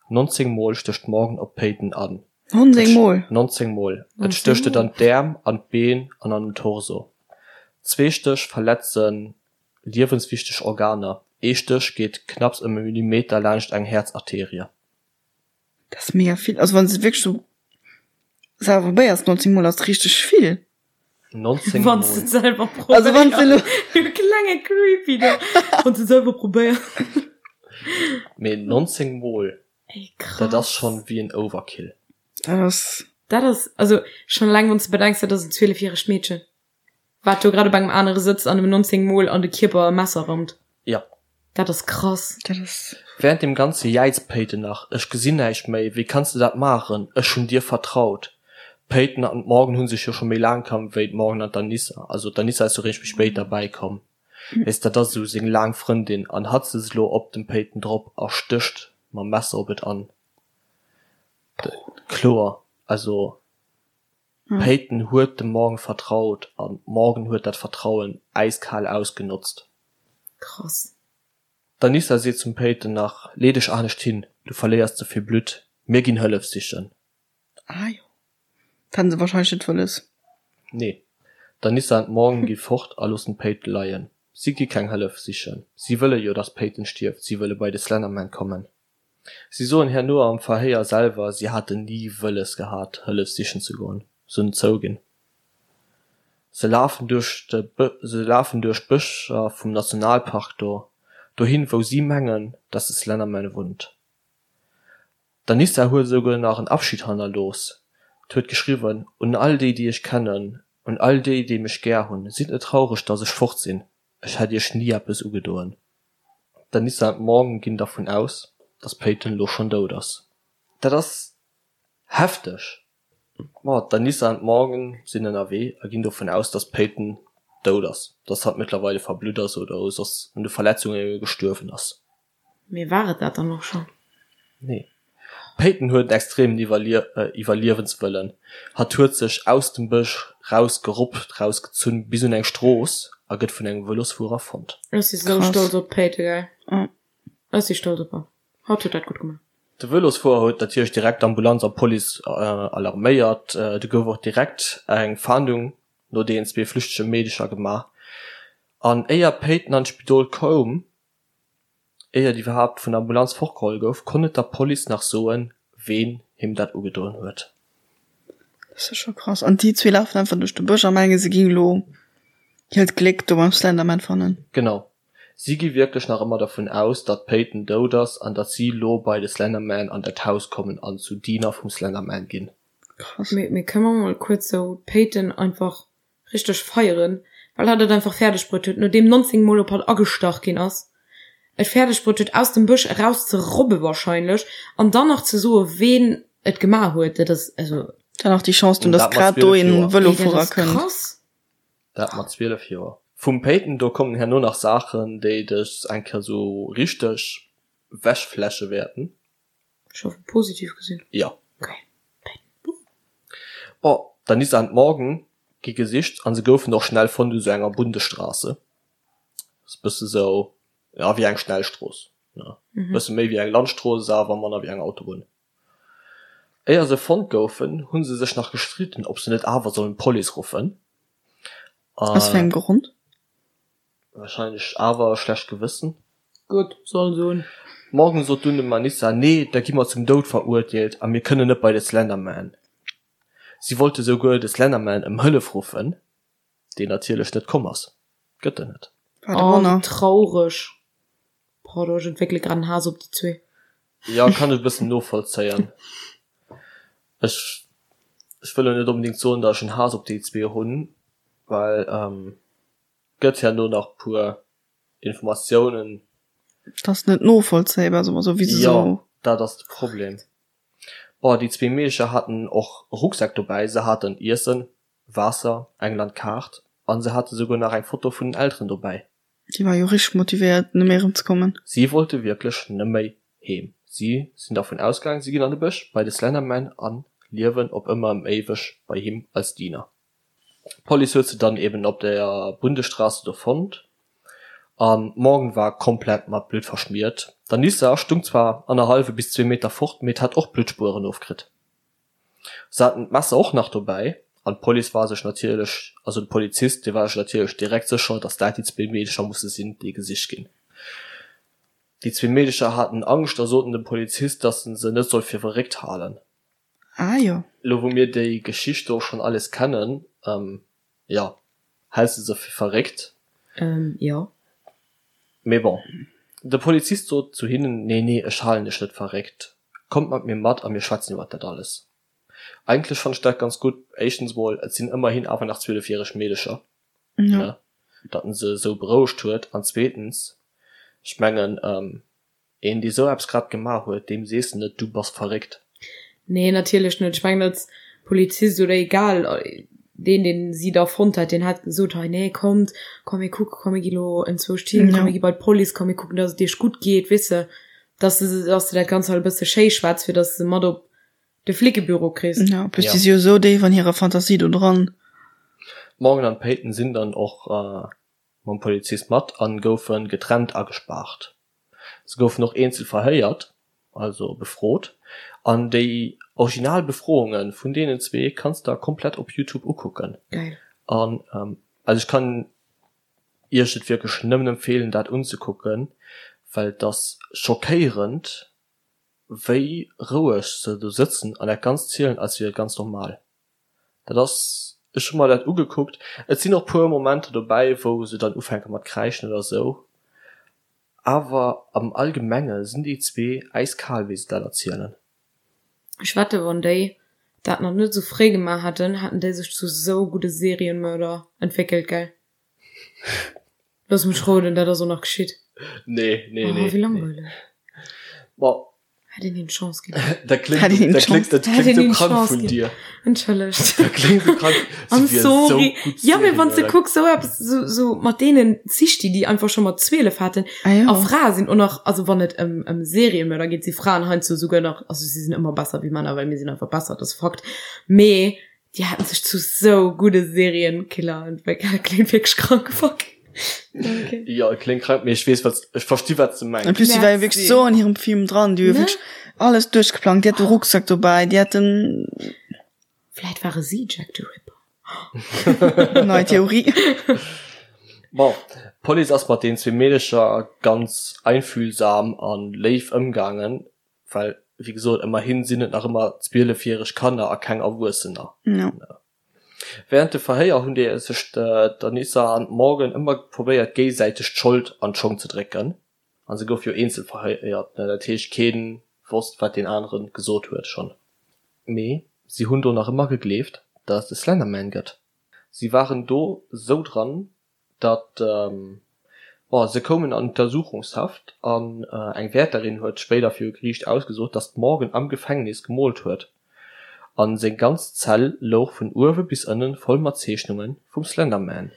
A: 19 Mol stécht d'Morgan op d'Peyton an.
B: 19 Mol?
A: 19 Mol. Et stécht et an d'Äerm, an d'Been an an den Torso. Zwee Stéch verletze liewenswichteg Organer, ee Stéch geet knapps ëm e Millimeter laanscht eng Häerzarterie.
B: Dat ass mega vill. Also wann s de wierklech sou selwer probéiers, 19 Mol ass richteg vill.
A: 19 Mol.
C: Wann s de et selwer probéiers.
B: Also wann s de elo.
C: Du klenge Creepy do. Wann s de et selwer probéiers.
A: Mee 19 Mol,
C: Ey, krass.
A: dat ass schonn wéi en Overkill.
B: Dat ass.
C: Dat ass, also schonn eleng wann s de bedenks, dat ass en 12 järegt Meedchen. Wat do grad op engem anere sëtzt an em 19 mol an de Kierper e Messer rammt.
A: Ja.
C: Dat ass krass.
B: Dat ass.
A: Während deem ganze jäizt d'Peyton nach, Ech gesinn näischt méi, wéi kanns de dat maachen, ech hunn dir vertraut. D'Peyton an d'Morgan hu sech jo scho méi laang kannt wéi d'Morgan an d'Anissa, also d'Anissa ass jo réischt méi spéit derbäi komm, weess, dat ass esou seng laang Frëndin an hatt sëtzt elo op dem Peyton drop a stécht mam Messer op et an. Kloer, also D'Peyton huet dem Morgan vertraut an d'Morgan huet dat Vertrauen äiskal ausgenotzt.
C: Krass.
A: D'Anissa seet zum Peyton nach, Lee dech anescht hin, du verléiers ze vill Blutt, mir ginn Hëllef sichen.
B: Ah jo, dat haten se wahrscheinlech net wëlles.
A: Nee. D'Anissa an d'Morgan gi fort a loossen d'Peyton leien. Si gi keng Hëllef sichen, si wëlle jo, dass d'Peyton stierft, si wëlle bei de Slenderman kommen. Si soen herno am Verhéier selwer, si haten ni wëlles gehat, Hëllef sichen ze goen. Se hunn zouginn. Se lafen duerch de se lafen duerch d'Bëscher vum Nationalpark do, dohin, wou si mengen, dass de Slenderman wunnt. D'Anissa huet esouguer nach en Abschid hannerlooss. D'huet geschriwwen, Un all déi, déi ech kennen, un all déi, déi mech gär hunn, sidd net traureg, dass ech fort sinn, ech hätt iech ni eppes ugedoen. D'Anissa an d'Morgan ginn dervun aus, dass d'Peyton elo schonn dout ass. Dat ass hefteg! Ma d'Anissa an d'Morgan sinn ënnerwee a ginn dovun aus, dass d'Peyton dout ass, dass hatt mëttlerweile verblutt ass oder soss un de Verletzunge gestuerwen ass.
C: Mee war et dat dann och schonn?
A: Nee. D'Peyton huet en extremen Iwwerliewenswëllen. Hatt huet sech aus dem Bësch raus geruppt, raus gezunn bis un eng Strooss a gëtt vun engem Vëlosfuerer fonnt.
C: Ech si sou stolz op d'Peyton, gell. Ech si stolz op hatt. Hatt huet dat gutt gemaach.
A: De Vëlosfuerer huet natierlech direkt d'Ambulanz a Police alarméiert. Du gouf och direkt eng Fahndung no deenen zwee flüchtege Meedecher gemaach. An éier d'Peyton an d'Spidol koum, Éier et iwwerhaapt vun der Ambulanz fortgeholl gouf, konnt et der Police nach soen, ween him dat ugedoen huet.
B: Dat ass jo scho krass. An déi zwee lafen einfach duerch de Bësch a mengen, se géing elo hiert Gléck do beim Slenderman fannen.
A: Genau. Si gi wierklech nach ëmmer dervun aus, datt d'Peyton dout ass an datt si lo bei de Slenderman an dat Haus kommen an zu Diener vum Slenderman ginn.
B: Krass.
C: Mee, mee kënne mer mol kuerz sou d'Peyton einfach richteg feieren, well hatt et einfach fäerdeg bruet huet, nodeem 19 mol op hatt agestach ginn ass, et fäerdeg bruet huet aus dem Bësch eraus ze robbe wahrscheinlech an dann nach ze soe ween. et gemaach huet, dat ass also.
B: Dann nach déi Chance hunn,
A: Dat
B: dass
A: mat
B: grad do
A: 12
B: een
A: Joer.
C: Ey, dat
B: Vëlofuerer
C: ass
B: kënnt.
C: krass.
A: Dat mat 12 Joer. Vum Peyton, do kommen herno nach Saachen, déi dech eng Kéier sou richteg wechflashe wäerten.
C: Ech hoffen positiv gesinn.
A: Jo.
C: Okay. Peyton.
A: Bon, d'Anissa an d'Morgan gi gesicht an se goufen och schnell fonnt u sou enger Bundesstraße. Ass e bësse sou, ja, wéi eng Schnellstrooss, ne? Bësse méi wéi eng Landstrooss, awer manner wéi eng Autobunn. Éier se fonnt goufen, hu se sech nach gestridden, ob se net awer sollen d'Police ruffen.
B: Aus wéi engem Grond?
A: Wahrscheinlech awer schlecht Gewëssen.
C: Gutt, soll se hunn.
A: Morgan sot dunn dem Anissa, Nee, da gi mer zum Doud verurteelt a mir kënnen net bei de Slenderman. Si wollte souguer de Slenderman ëm Hëllef ruffen, deen natierlech net komm ass. Gëtt en net.
B: Wat e
C: Oh, wéi
B: Wonner.
C: traureg. Pardon, ech entwéckele grad en Haass op déi zwee.
A: Jo, kann ech e bëssen novollzéien. Ech, ech wëll elo net onbedéngt soen, datt ech en Haass op déi zwee hunn, well gëtt herno nach puer Informatiounen.
B: Dat ass net novollzéibar, soe mer esou, wéi se
A: Jo,
B: esou.
A: dat ass de Problem. Bon, déi zwee Meedecher haten och e Rucksak dobäi, se haten Iessen, Waasser, eng Landkaart an se hate souguer nach eng Foto vun den Elteren dobäi.
B: Déi war jo richteg motivéiert nëmme erëm ze kommen.
A: Si wollte wierklech nëmméi heem. Si sinn dervun ausgaang, si ginn an de Bësch bei de Slenderman a liewen op ëmmer ëm éiweg bei him als Diener. D'Police huet se dann eben op der Bundesstraße do fonnt an d'Morgan war komplett mat Blutt verschmiert. D'Anissa stung zwar annerhallwe bis zwee Meter fort, mee et hat och Bluttspueren ofkritt. Se haten d'Messer och nach dobäi an d'Police war sech natierlech, also de Polizist, dee war sech natierlech direkt sécher, datt dat déi zwee Meedecher musse sinn, déi gesicht ginn. Déi zwee Meedecher haten Angscht a soten dem Polizist, datt en se net soll fir verréckt halen.
B: Ah jo.
A: Elo wou mir déi Geschicht do schonn alles kennen, jo, häls de se fir verréckt?
C: Jo.
A: Mee bon, de Polizist sot zu hinnen, Nee, nee, ech halen iech net verréckt. Kommt mat mir mat a mir schwätzen iwwert dat alles. Eigentlech fannt ech dat ganz gutt. Éischtens mol, et sinn ëmmerhin awer nach zwielefjäreg Meedecher, ne, datt en se esou berouegt huet. An zweetens, ech mengen, Een dee sou eppes grad gemaach huet, deem sees de net, du bass verréckt.
C: Nee, natierlech net. Ech mengen als Polizist oder egal deen deen si da fonnt hat, deen hätt gesot, hei nee kommt, komm mir kucken, komm mir gi lo enzwousch hin, komm mir gi bei d'Police, komm mir kucken, datt et iech gutt geet, weess de, datt s de datt s de dat Ganzt halt e bësse schéi schwätz, fir datt s de se mat op de Flickebüro kriss.
B: Ja, plus déi si jo esou déif an hirer Fantasie do dran.
A: D'Morgan an d'Peyton sinn dann och mam Polizist mat an goufe getrennt agespaart. Se goufen och eenzel verhéiert, also befrot, an déi original Befrounge vun deenen zwee kanns der komplett op Youtube ukucken.
C: Geil.
A: An also ech kann iech et wierklech nëmmen empfeelen dat unzekucken, well et ass schockéierend wéi roueg se do sëtzen an dat Ganzt zielen als wier et ganz normal. Dat ass, ech hu mer dat ugekuckt, et sinn och puer Momenter dobäi wou se dann ufänke mat kräischen oder sou, awer am Allgemenge sinn déi zwee äiskal wéi se dat erzielen.
C: Ech wette wann déi dat nach net sou fréi gemaach hätten, hätten déi sech zu sou gudde Serienmörder entwéckelt, gell? Looss mech roden, dat ass och nach geschitt.
A: Nee, nee, nee.
C: Oh, wéi langweileg.
A: Bon.
C: Hätt een him d'Chance ginn.
A: Dat kléngt, Hätt een him dat kléngt, dat
C: Hätt
A: kléngt
C: een
A: sou
C: him
A: krank
C: d'Chance
A: vun
C: ginn.
A: dir.
C: Entschëllegt.
A: Dat kléngt sou krank. Si
C: I'm
A: wier sou
C: sorry.
A: gutt
C: Ja, mee wann s de
A: Serienmörder.
C: kucks, sou eppes, sou, sou mat deenen Zichti, déi einfach scho mat 12 haten.
B: Ah jo.
C: A Frae sinn och nach, also wann et ëm, ëm Seriemörder geet, si Fraen heiansdo souguer nach, also si sinn ëmmer besser wéi Männer, well mir sinn einfach besser, dat ass Fakt. Mee Déi haten sech zu sou gudde Serienkiller entwéckelt. Kléngt wierklech krank, fuck.
A: Okay. Jo, et kléngt krank, mee ech weess, wat, ech versti wat s de mengs.
B: En plus, déi war jo wierklech sou an hirem Film dran, déi hu jo wierklech alles duerchgeplangt, déi hat de Rucksack dobäi, déi hat den.
C: Vläit ware si Jack the Ripper.
B: Nei Theorie.
A: Bon, d'Police ass mat den zwee Meedecher ganz einfühlsam an léif ëmgaangen, Well, wéi gesot, ëmmerhin sinn et nach ëmmer zwielefjäreg Kanner a keng Erwuessener.
B: Ja.
A: Während de Verhéier hunn déi sech d'Anissa an d'Morgan ëmmer probéiert géisäiteg d'Schold an d'Schong ze drécken. A se gouf jo eenzel verhéiert, dat heescht kee wosst wat deen anere gesot huet schonn. Mee si hunn do nach ëmmer gegleeft, datt et de Slenderman gëtt. Si waren do sou dran, datt. Bon, se koumen an Untersuchungshaft an eng Wäerterin huet spéider viru Geriicht ausgesot, datt d'Morgan am Gefängnis gemoolt huet a seng ganz Zell louch vun uewe bis ënne voll mat Zeechnunge vum Slenderman.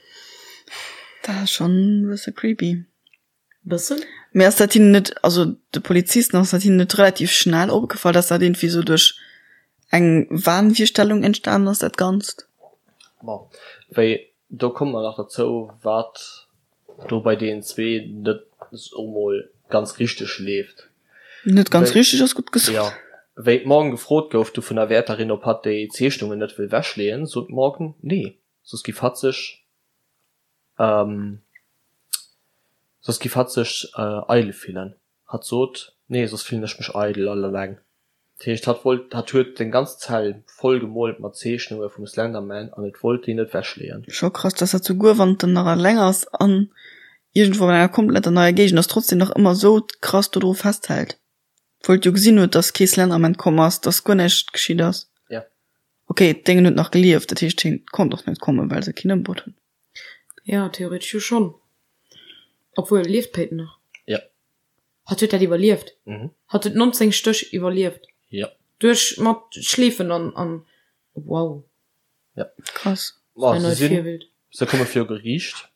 B: Dat ass schonn e bësse creepy.
C: Bëssen.
B: Mee ass dat hinnen net, also de Polizisten, ass dat hinnen net relativ schnell opgefall, dass dat iergendwéi sou duerch eng Wahnvirstellung entstanen ass, dat Ganzt?
A: Bon, wéi, do komme mer nach derzou, wat do bei deenen zwee net soe mol ganz richteg leeft.
B: Net ganz richteg ass gutt gesot.
A: Jo. Wéi d'Morgan gefrot gouf du vun der Wäerterin, ob hatt déi Zeechnungen net wëll wechleeën, sot d'Morgan nee, soss giff hatt sech Soss giff hatt sech eidel fillen. Hatt sot, Nee, soss fillen ech mech eidel all eleng. Dat heescht, hatt wollt, hatt huet seng ganz Zell voll gemoolt mat Zeechnunge vum Slenderman an et wollt déi net wechleeën.
B: Scho krass, dass hatt souguer wann en nach eleng ass an iergendwou an enger kompletter neier Géigend ass, trotzdem nach ëmmer sou krass dodru festhält. Obwuel et jo gesinn huet, dass kee Slenderman komm ass, dass guer näischt geschitt ass.
A: Ja.
B: Ok, d'Déngen huet nach gelieft, dat heescht hien konnt och net kommen, well se keen ëmbruet hunn.
C: Ja, theoretesch jo schonn. Obwuel, lieft d'Peyton nach?
A: Ja.
C: Hatt huet dat iwwerlieft?
A: Mhm.
C: Hatt huet 19 Stéch iwwerlieft?
A: Ja.
C: Duerch mat Schleefen an, an, wow.
A: Ja.
B: Krass.
A: Ma
C: Ein
A: se
C: neues
A: sinn,
C: Virbild.
A: se komme viru Geriicht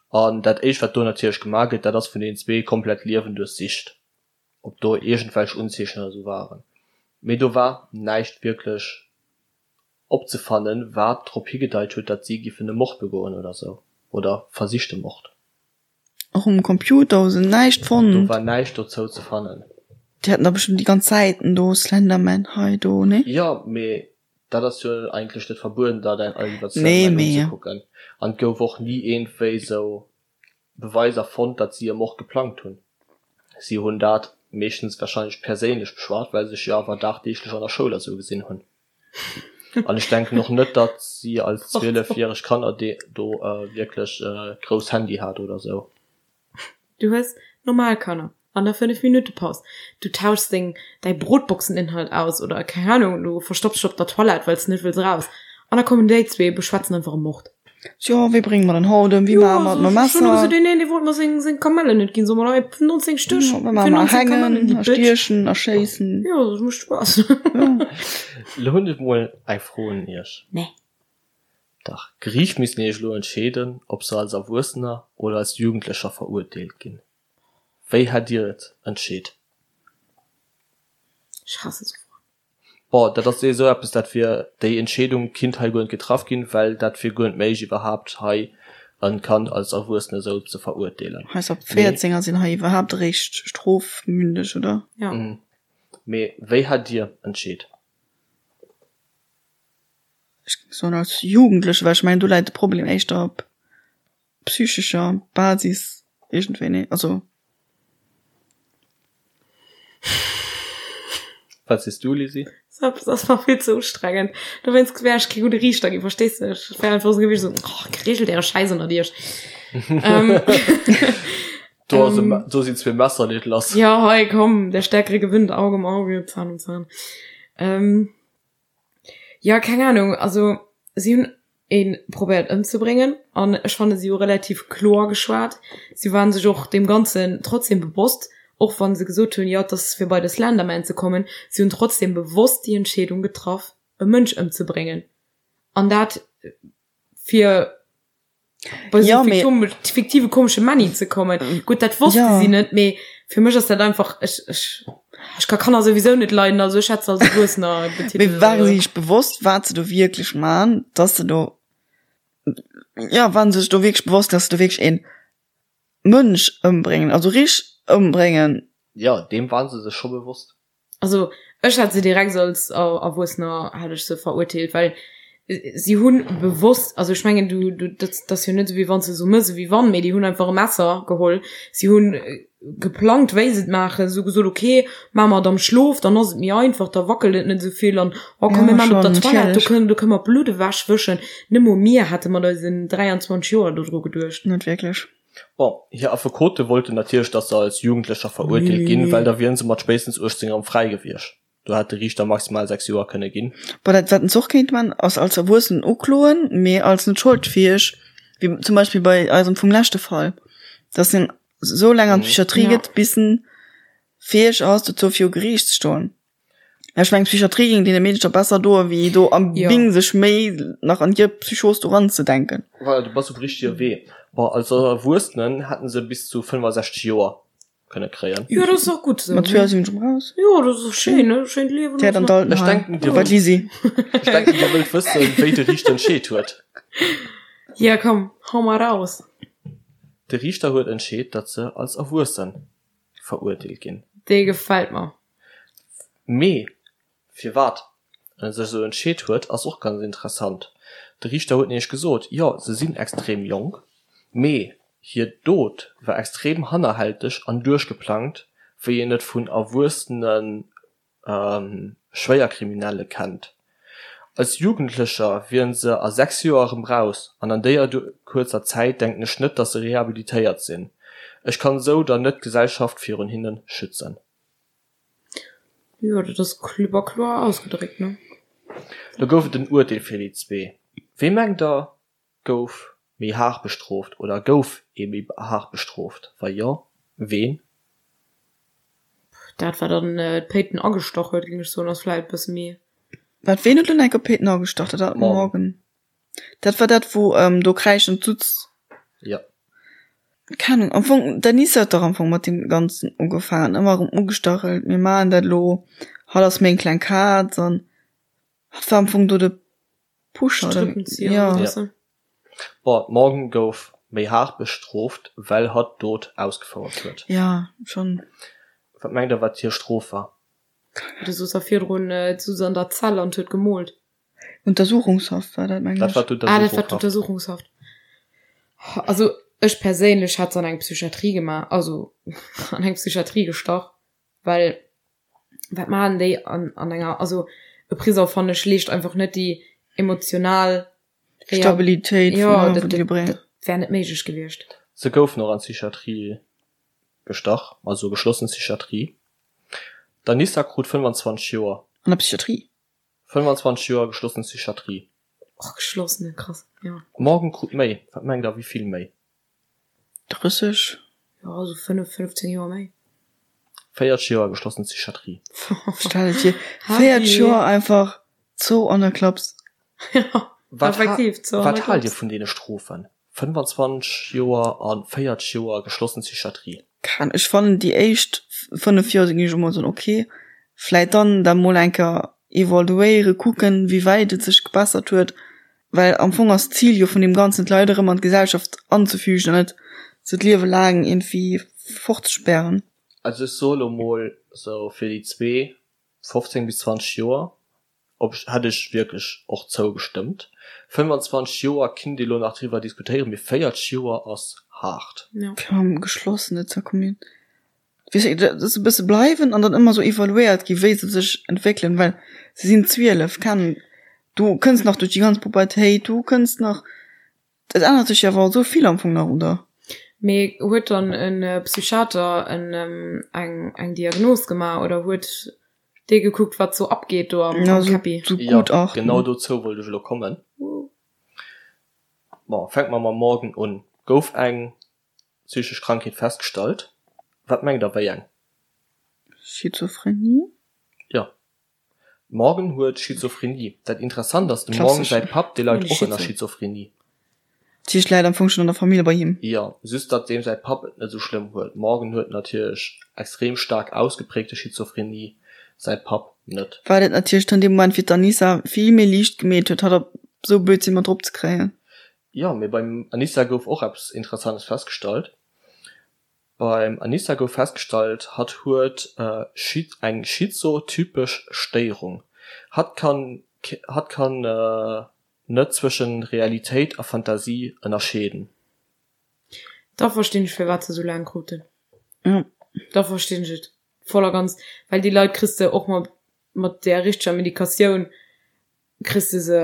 A: an dat éischt wat do natierlech gemaach gëtt, dat ass vun deenen zwee komplett Liewen duerchsicht. ob do iergendwelch Unzeechen oder sou waren, mee do war näischt wierklech opzefannen, wat drop higedeit huet, datt si giffen e Mord begoen oder sou, oder versichte Mord.
B: Och um Computer hu se näischt fonnt?
A: Do war näischt dozou ze fannen.
B: Déi haten da bestëmmt déi ganz Säiten do, Slenderman hei, do, nee?
A: Jo, mee dat ass jo eigentlech net verbueden, dat iwwer
B: Nee,
A: Slenderman
B: mee.
A: unzekucken. An et gouf och ni iergendwéi sou Beweiser fonnt, datt si e Mord geplangt hunn. Si hunn dat meeschtens warscheinlech perséinlech beschwat, well se sech jo awer dagdeeglech an der Schoul a sou gesinn hunn. An ech denken och net, datt si als 12 järeg Kanner do wierklech grouss Handy hat oder sou.
C: Du hues normal Kanner an der 5 Minutte Paus, du tauschs deng däi Brotboxeninhalt aus oder keng Ahnung, du verstopps dech op der Toilette wells de net wëlls eraus an da kommen déi zwee beschwätzen einfach e Mord.
B: Jo, wéi brénge mer den haut ëm, wéi maache mer et mam
C: Messer? Ech hunn gesot,
B: deen
C: een dee wollt mer seng seng Kamellen net ginn, soe mer hei 19 Stéch
B: Jo, wéi maache mer erhängen, erstiechen, erschéissen?
C: Jo, dat mécht Spaass.
A: Lo hunn ech mol eng Fro un iech.
C: Nee.
A: Dach, Geriicht missten iech elo entscheeden, ob se als Erwuessener oder als Jugendlecher verurteelt ginn. Wéi hätt Dir et entscheet?
C: Ech hasse sou Froen.
A: Bon, dat ass esou eppes, dat wier, déi Entscheedung kinnt hei guer net getraff ginn, well dat wier guer net méiglech iwwerhaapt hei e Kand als Erwuessene esou ze verurteelen.
B: Eis ab 14er sinn hei iwwerhaapt eréischt strofmündeg, oder?
C: Jo.
A: Mee wéi hätt Dir entscheet?
B: Ech géing soen als Jugendleche, well ech mengen do läit de Problem éischter op psychescher Basis iergendwéi, nee? Also.
A: Wat sees du, Lisi?
C: Dat ass mer vill ze ustrengend. Dowéinst wär ech kee gudde Riichter ginn, verstees de? Ech wär einfach esou gewiescht, esou, oh, regelt äre Schäiss ënnert iech. Ähm,
A: Do ass e Me- do sinn zwee Messer, leet lass.
C: ja, hei, komm, der Stärkere gewinnt, Auge um Auge, Zahn um Zahn. Ähm, Jo, keng Ahnung, also si hunn ee probéiert ëmzebréngen an ech fanne si hu relativ kloer geschwat. Si waren sech och deem Ganzen trotzdem bewosst, och wann se gesot hunn, jo et ass fir bei de Slenderman ze kommen. Si hunn trotzdem bewosst déi Entscheedung getraff e Mënsch ëmzebréngen an dat fir bei so
B: Ja, mee-
C: fiktive komesche Männi ze kommen. Gutt, dat wosste
B: Ja.
C: si net, mee fir mech ass dat einfach ech, ech, ech ka Kanner souwisou net leiden, also ech hätt se als Erwuessener
B: Mee
C: betitelt.
B: ware si sech bewosst, wat se do wierklech man, dass se do, ja, waren se sech do wierklech bewosst, dass se do wierklech een Mënsch ëmbréngen, also richteg ëmbréngen?
A: Ja, deem waren se sech scho bewosst.
C: Also ech hätt se direkt als Erwuessener hätt ech se verurteelt, well si hunn bewosst, also ech mengen du du dat ass jo net esou wéi wann s de esou mëss ewéi wann, mee déi hunn einfach e Messer geholl, si hunn geplangt wéi se et maachen, si hu gesot ok maache mer et am Schlof, dann ass et méi einfach, da wackelt et net esou vill an oh komm mir maachen et op der Toilette, do kënnen do kënne mer d'Blutt ewech wëschen. Net mol mir hätte mat eisen 23 Joer dodru geduecht.
B: Net wierklech.
A: Bon, hir Affekote wollten natierlech, datt se als Jugendlecher verurteelt ginn, well da wieren se mat spéitstens 18 erëm fräi gewiescht. Do hätt de Riichter maximal 6 Joer kënne ginn.
B: Bon, dat wat en se och kéint man, ass als Erwuessenen ukloen, mee als net scholdfäeg, wéi zum Beispill bei eisem vum leschte Fall. Dass en esou laang an d'Psychiatrie gëtt, bis en fäeg ass, dozou viru Geriicht ze stoen. Ech mengen, d'Psychiatrie géing deene Meedercher besser doen, wéi do am Bing sech méi nach an hir Psychos do eranzedenken.
A: Voilà, du bass um richtege Wee. Bon, als Erwuessenen hätten se bis zu 65 Joer kënne kréien.
C: Jo, dat ass och gutt esou.
B: Mat 2 sinn ech raus.
C: Jo, dat ass och schéin, ne? Schéint Liewen.
B: Fäert an
A: d'Altenheim. Ech denken, dir
B: Bei d'Lisi.
A: Ech denken, dir wëllt wëssen, wéi de Riichter entscheet huet.
C: Ja, komm, hau mal raus.
A: De Riichter huet entscheet, datt se als Erwuesse verurteelt ginn.
C: Dee gefält mer.
A: Mee Firwat en sech esou entscheet huet, ass och ganz interessant. De Riichter huet nämlech gesot, jo, se sinn extrem jonk, mee hir Dot war extrem hannerhälteg an duerchgeplangt, wéi een et vun erwuessene Schwéierkriminelle kennt. Als Jugendlecher wieren se a 6 Joer erëm raus an an déier kuerzer Zäit denken ech net, datt se rehabilitéiert sinn. Ech kann esou dann net d'Gesellschaft virun hinne schützen.
C: Jo, dat ass klipp a kloer ausgedréckt, ne?
A: Do gouf et en Urteel fir déi zwee. Wee mengt der gouf méi haart bestrooft oder gouf ee méi haart bestrooft? Wa jo, ween?
C: Dat wat an d'Peyton agestach huet, géing ech soen, ass vläit e bësse méi.
B: Wat, ween huet elo enke Peyton agestach? Dat war Morgan. Dat war dat wou do kräischend sutz.
A: Jo.
B: Keng Ahnung, am Fong d'Anissa huet dach am Fong mat deem ganzen ugefaangen, ëmmer erëm ugestachelt, mir maachen dat elo, hatt ass meng kleng Kaz an hatt war am Fong do de Pusher oder
C: Strippenzieher ja. oder
A: sou. Bon, d'Morgan gouf méi haart bestrooft, well hatt d'Dot ausgefouert huet.
B: Ja, schonn.
A: Wat mengt der wat hir Strof war?
C: Du soos a virdrun, d'sutz an der Zell an huet gemoolt.
B: Untersuchungshaft war dat, mengen
A: ech. Dat war
C: Ah, dat war d'Untersuchungshaft. Also ech perséinlech hätt se an eng Psychiatrie gemaach, also an eng Psychiatrie gestach, well wat maachen déi an, an enger, also e Prisong fannen ech leescht einfach net déi emotional
B: Stabilitéit,
C: jo, dat, dat, dat wär net méiglech gewiescht.
A: Se goufen och an d'Psychiatrie gestach, also geschlossen Psychiatrie. D'Anissa krut 25 Joer.
B: An der Psychiatrie?
A: 25 Joer geschlossen Psychiatrie.
C: Och geschlossene, krass, jo.
A: Morgan krut méi. Wat mengt der, wéi vill méi?
B: 30?
C: Jo, esou 5, 15 Joer méi.
A: 40 Joer geschlossen Psychiatrie.
B: Stell et vir, 40 Joer einfach zou an der Klaps.
C: Jo, effektiv,
A: zou an der Klaps. Wat haalt dir vun deene Strofen? 25 Joer a 40 Joer geschlossen Psychiatrie.
B: Kann, ech fannen déi éischt 5 Joer sinn ech emol soen ok, vläit dann dat mol eng Kéier evaluéiere kucken wéi wäit et sech gebessert huet, well am Fong ass d'Zil jo vun deem Ganzen d'Leit erëm an d'Gesellschaft anzefügen an net se d'Liewe laang iergendwéi fortzespären.
A: Also ech soe lo mol sou fir déi zwee 15 bis 20 Joer Op hätt ech wierklech och zougestëmmt. 25 Joer kinnt ee lo nach driwwer diskutéieren, mee 40 Joer ass haart.
B: Fir am Geschlossene ze kommen, weess de, dass se e bësse bleiwen an dann ëmmer sou evaluéiert gi wéi se sech entwéckelen, well se sinn 12, keng, du kënns nach duerch déi ganz Pubertéit, du kënns nach, Et ännert sech jo awer esou vill am Fong nach, oder?
C: Mee huet dann e Psychiater eng eng Diagnos gemaach oder huet dee gekuckt wat sou abgeet do am Käppi?
A: Jo, genau dozou wollt ech elo kommen. Bon, fänke mer mam Morgan un. Gouf eng psychesch Krankheet festgestallt? Wat mengt der, wéi eng?
B: Schizophrenie?
A: Jo. Morgan huet Schizophrenie. Dat Interessant ass, dem Morgan säi Papp, dee leit och ënner Schizophrenie.
B: Dat heescht, läit am Fong schonn an der Famill bei him?
A: Jo, just datt deem säi Papp et net esou schlëmm huet. Morgan huet natierlech extrem staark ausgeprägte Schizophrenie, säi Papp net.
B: Wat et natierlech dann dee Moment fir d'Anissa vill méi liicht gemeet huet, hatt op esou Blödsinn mat drop ze kréien.
A: Jo, mee beim Anissa gouf och eppes Interessantes festgestallt. Beim Anissa gouf festgestallt, hatt huet eng schizotypesch Stéierung. Hatt kann hatt kann net zwëschen Realitéit a Fantasie ënnerscheeden.
C: Da verstinn ech firwat se sou laang kruten. Da verstinn ech et voll a ganz, well déi Leit kriss de och mat mat där richteger Medikatioun kriss de se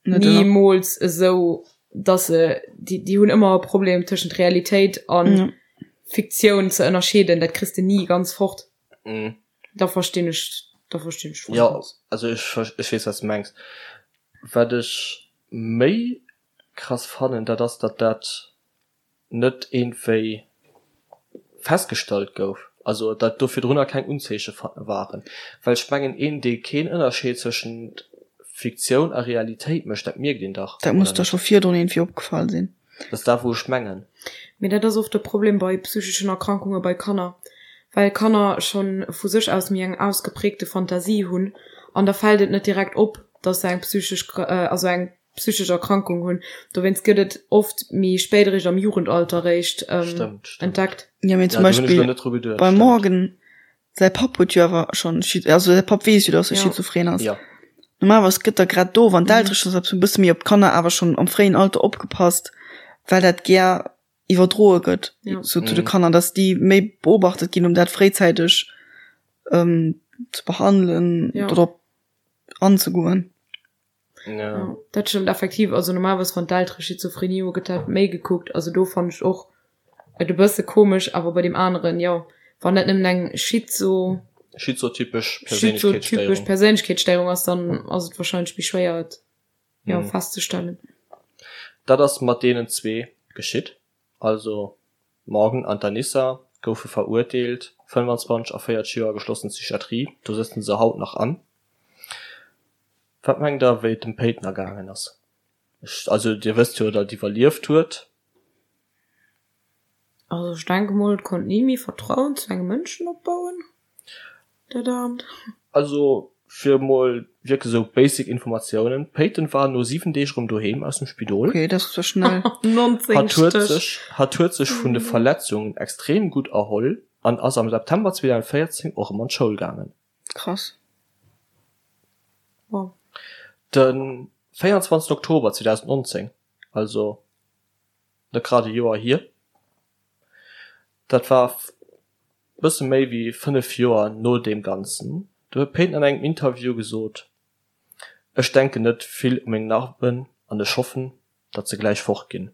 C: Nimools esou, dass se, déi, déi hunn ëmmer e Problem tëschent Realitéit an ja. Fiktioun ze ënnerscheeden, dat kriss de ni ganz fort.
A: Mm.
C: Da verstinn ech, da verstinn ech
A: voll. Ja, also ech, ech weess, wat s de mengs. Wat ech méi krass fannen, dat ass, datt dat. net iergendwéi festgestallt gouf, also datt do virdrunner keng Unzeeche waren. Well ech mengen, een dee keen Ënnerscheed zwëschent Fiktioun a Realitéit mécht, dat mierkt een dach,
B: Dat muss
A: oder
B: der
A: net?
B: scho virdrun iergendwéi opgefall sinn.
A: Dat ass dat wou ech mengen.
C: Mee dat ass oft de Problem bei psycheschen Erkrankunge bei Kanner, well Kanner schonn vu sech aus méi eng ausgeprägte Fantasie hunn an da fält et net direkt op, dass se eng psychesch, also eng psychesch Erkrankung hunn. Dowéinst gëtt et oft méi spéit eréischt am Jugendalter eréischt entdeckt.
B: Jo, mee zum Beispill beim Morgan säi Papp huet jo awer schonn, also säi Papp weess jo, dass e schizophren ass. Normalerweis gëtt da grad do, wann d'Eltere schonn e bësse méi op d'Kanner awer schonn am fréien Alter opgepasst, well dat gär iwwerdroe gëtt sou zu de Kanner, dass déi méi beobachtet ginn, um dat fréizäiteg ze behandelen oder drop anzegoen.
C: Ja. Dat stëmmt effektiv. Also normalerweis wann d'Eltere Schizophrenie hu gëtt dat méi gekuckt. Also do fannen ech och et e bësse komesch, awer bei deem aneren jo, wann dat nëmmen eng Schizo
A: Schizotypesch
C: schizotypesch Perséinlechkeetsstéierung ass, dann ass et wahrscheinlech méi schwéier et jo festzestellen.
A: Dat ass mat deenen zwee geschitt. Also Morgan an d'Anissa goufe verurteelt, 25 a 40 Joer geschlossen Psychiatrie, do sëtzen se haut nach an. Wat mengt der wéi et dem Peyton ergaangen ass? Ech, also dir wësst jo datt iwwerlieft huet.
C: Also ech denke mol et konnt ni méi Vertrauen zu engem Mënschen opbauen, dat Aarmt.
A: Also fir mol wierklech esou basic Informatiounen, d'Peyton war no 7 Deeg erëm doheem aus dem Spidol.
B: Ok, dat ass zwar schnell.
C: 19
A: Hatt huet
C: Stéch.
A: sech, hatt huet sech vun de Verletzungen extrem gutt erholl an ass am September 2014 och erëm an d'Schoul gaangen.
B: Krass.
C: Wow.
A: De 24 Oktober 2019, also net grad e Joer hier, dat war bësse méi wéi 5 Joer no deem Ganzen, do huet d'Peyton an engem Interview gesot, Ech denken net vill u meng Narben an ech hoffen, datt se gläich fort ginn.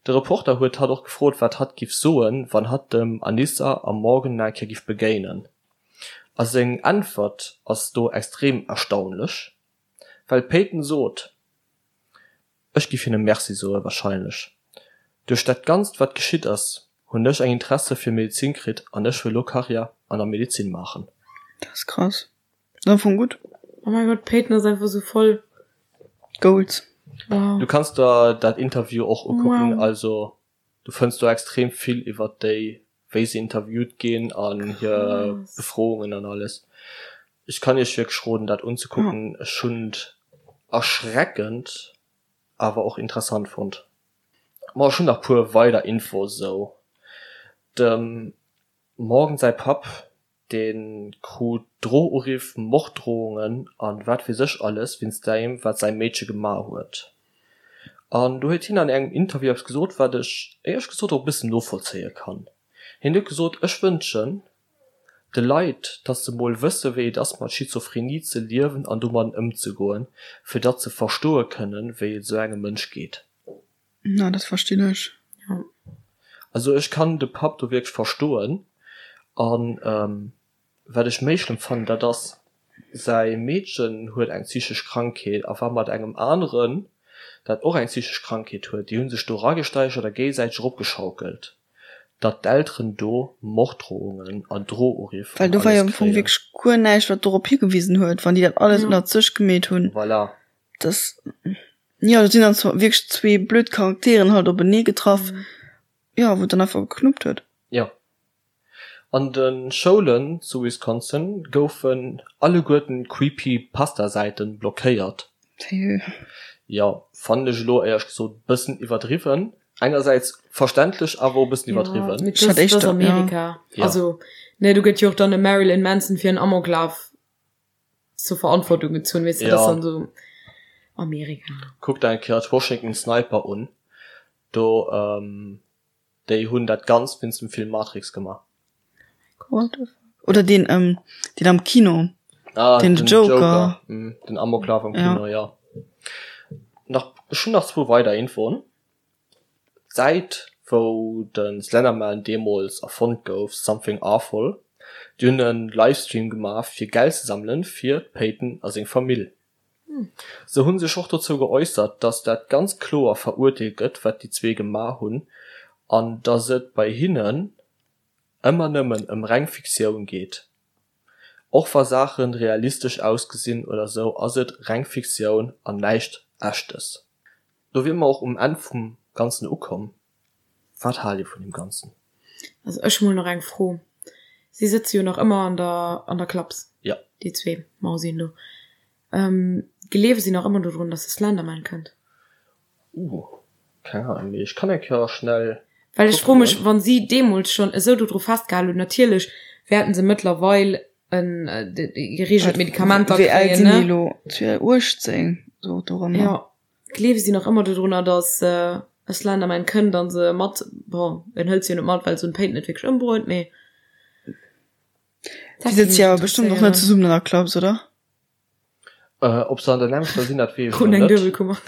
A: De Reporter huet hatt och gefrot, wat hatt giff soen, wann hatt dem Anissa am Morgan nach eng Kéier giff begéinen. A seng Äntwert ass do extrem erstaunlech, well d'Peyton sot, Ech giff hinne Merci soe wahrscheinlech. Duerch dat Ganzt wat geschitt ass, hunn ech eng Interesse fir Medezin kritt an ech wëll lo Karriär an der Medezin maachen.
B: Dat ass krass. Ass am Fong gutt.
C: Oh mein Gott, d'Peyton ass einfach sou voll
B: Goals.
C: Wow.
A: Du kanns der dat Interview och ukucken,
C: Wow.
A: also du fënns do extrem vill iwwert déi, wéi se interviewt ginn an hir
C: Krass.
A: Befroungen an alles. Ech kann iech wierklech roden dat unzekucken, ech hunn et erschreckend awer och interessant fonnt. Ma ech hunn nach puer weider Infos esou. Dem Morgan säi Papp Dee krut Drohuriff, Morddrohungen an wat weess ech alles wéinst deem wat säi Meedche gemaach huet. An do huet hien an engem Interview eppes gesot wat ech éierlech gesot och e bëssen novollzéie kann. Hien huet gesot, Ech wënschen de Leit, datt se mol wësse wéi et ass mat Schizophrenie ze liewen an domadden ëmzegoen, fir datt se verstoe kënnen, wéi et esou engem Mënsch geet.
B: Na, dat verstinn ech.
C: Ja.
A: Also ech kann de Papp do wierklech verstoen. An wat ech méi schlëmm fannen, dat ass, säi Meedchen huet eng psychesch Krankheet a war mat engem aneren, dat och eng psychesch Krankheet huet, déi hu sech do eragesteigert a géigesäiteg eropgeschaukelt, datt d'Elteren do Morddrohungen an Drohuriff
B: Well
A: an
B: do war jo
A: alles
B: am Fong
A: kréien.
B: wierklech guer näischt, wat dorop higewisen huet, wann déi dat alles
C: Ja.
B: ënnert sech gemeet hunn.
A: Voilà.
B: Das, jo, do sinn dann zwar wierklech zwee blöd Charakteren halt openee getraff, jo, wou et dann einfach geknuppt huet.
A: Jo. An de Schoulen zu Wisconsin goufen alleguerten Creepypasta-Säiten blockéiert.
B: Sérieux?
A: Jo, fannen ech elo éierlech gesot bëssen iwwerdriwwen. Engersäits verständlech, awer och e bëssen iwwerdriwwen.
C: Mee
B: Ech hat
C: das, das
B: éischter, ja.
C: Amerika.
A: Ja.
C: Also, ne, do gëtt jo och dann e Marilyn Manson fir en Amoklaf zur Verantwortung gezunn, weess de,
A: Ja.
C: das dann so Amerika.
A: Kuck der eng Kéier d'Washington Sniper un, do ähm, déi hunn dat Ganzt wéinst dem Film Matrix gemaach.
B: What the fuck? Oder deen, ähm, deen am Kino.
A: Ah,
B: Den Joker.
A: Mm, den Amoklauf am
B: Ja.
A: Kino, ja. Nach, ech hunn nach zwou weider Infoen. D'Säit wou de Slenderman deemools erfonnt gouf, Something Awful, déi hunn e Livestream gemaach fir Geld ze sammelen fir d'Peyton a seng Famill. Se hunn sech och dozou geäussert, datt dat ganz kloer verurteelt gëtt wat déi zwee gemaach hunn. An dass et bei hinnen ëmmer nëmmen ëm reng Fiktioun geet. Och wa Saachen realistesch ausgesinn oder sou ass et reng Fiktioun an näischt Echtes. Do wier mer och um Enn vum Ganzen ukomm. Wat haalt dir vun deem Ganzen?
C: Also ech hu mol nach eng Fro. Si sëtze jo nach ëmmer an der an der Klaps,
A: Ja.
C: déi zwee Mausien do. Gleewe si nach ëmmer dodrun, dass de Slenderman kënnt?
A: Uh, keng Ahnung, mee ech kann eng Kéier schnell
C: Well ech froe mech, wann si deemools schonn esou dodru festgehal hunn, natierlech wäerten se mëttlerweil en gereegelt Medikamenter
B: Wéi al kréien, sinn déi ne? elo? 18, sou
C: dorëmmer. Jo, gleewe si nach ëmmer dodrunner, dass e Slenderman kënnt an se mat, bon, en hëlt se jo net mat, well se hunn d'Péit net wierklech ëmbruet, mee
B: Déi sëtze jo awer bestëmmt och net zesummen an der Klass, oder?
A: Äh, ob se an der nämmlechter sinn, dat weess ech Kruten eng
C: net. Duebelkummer.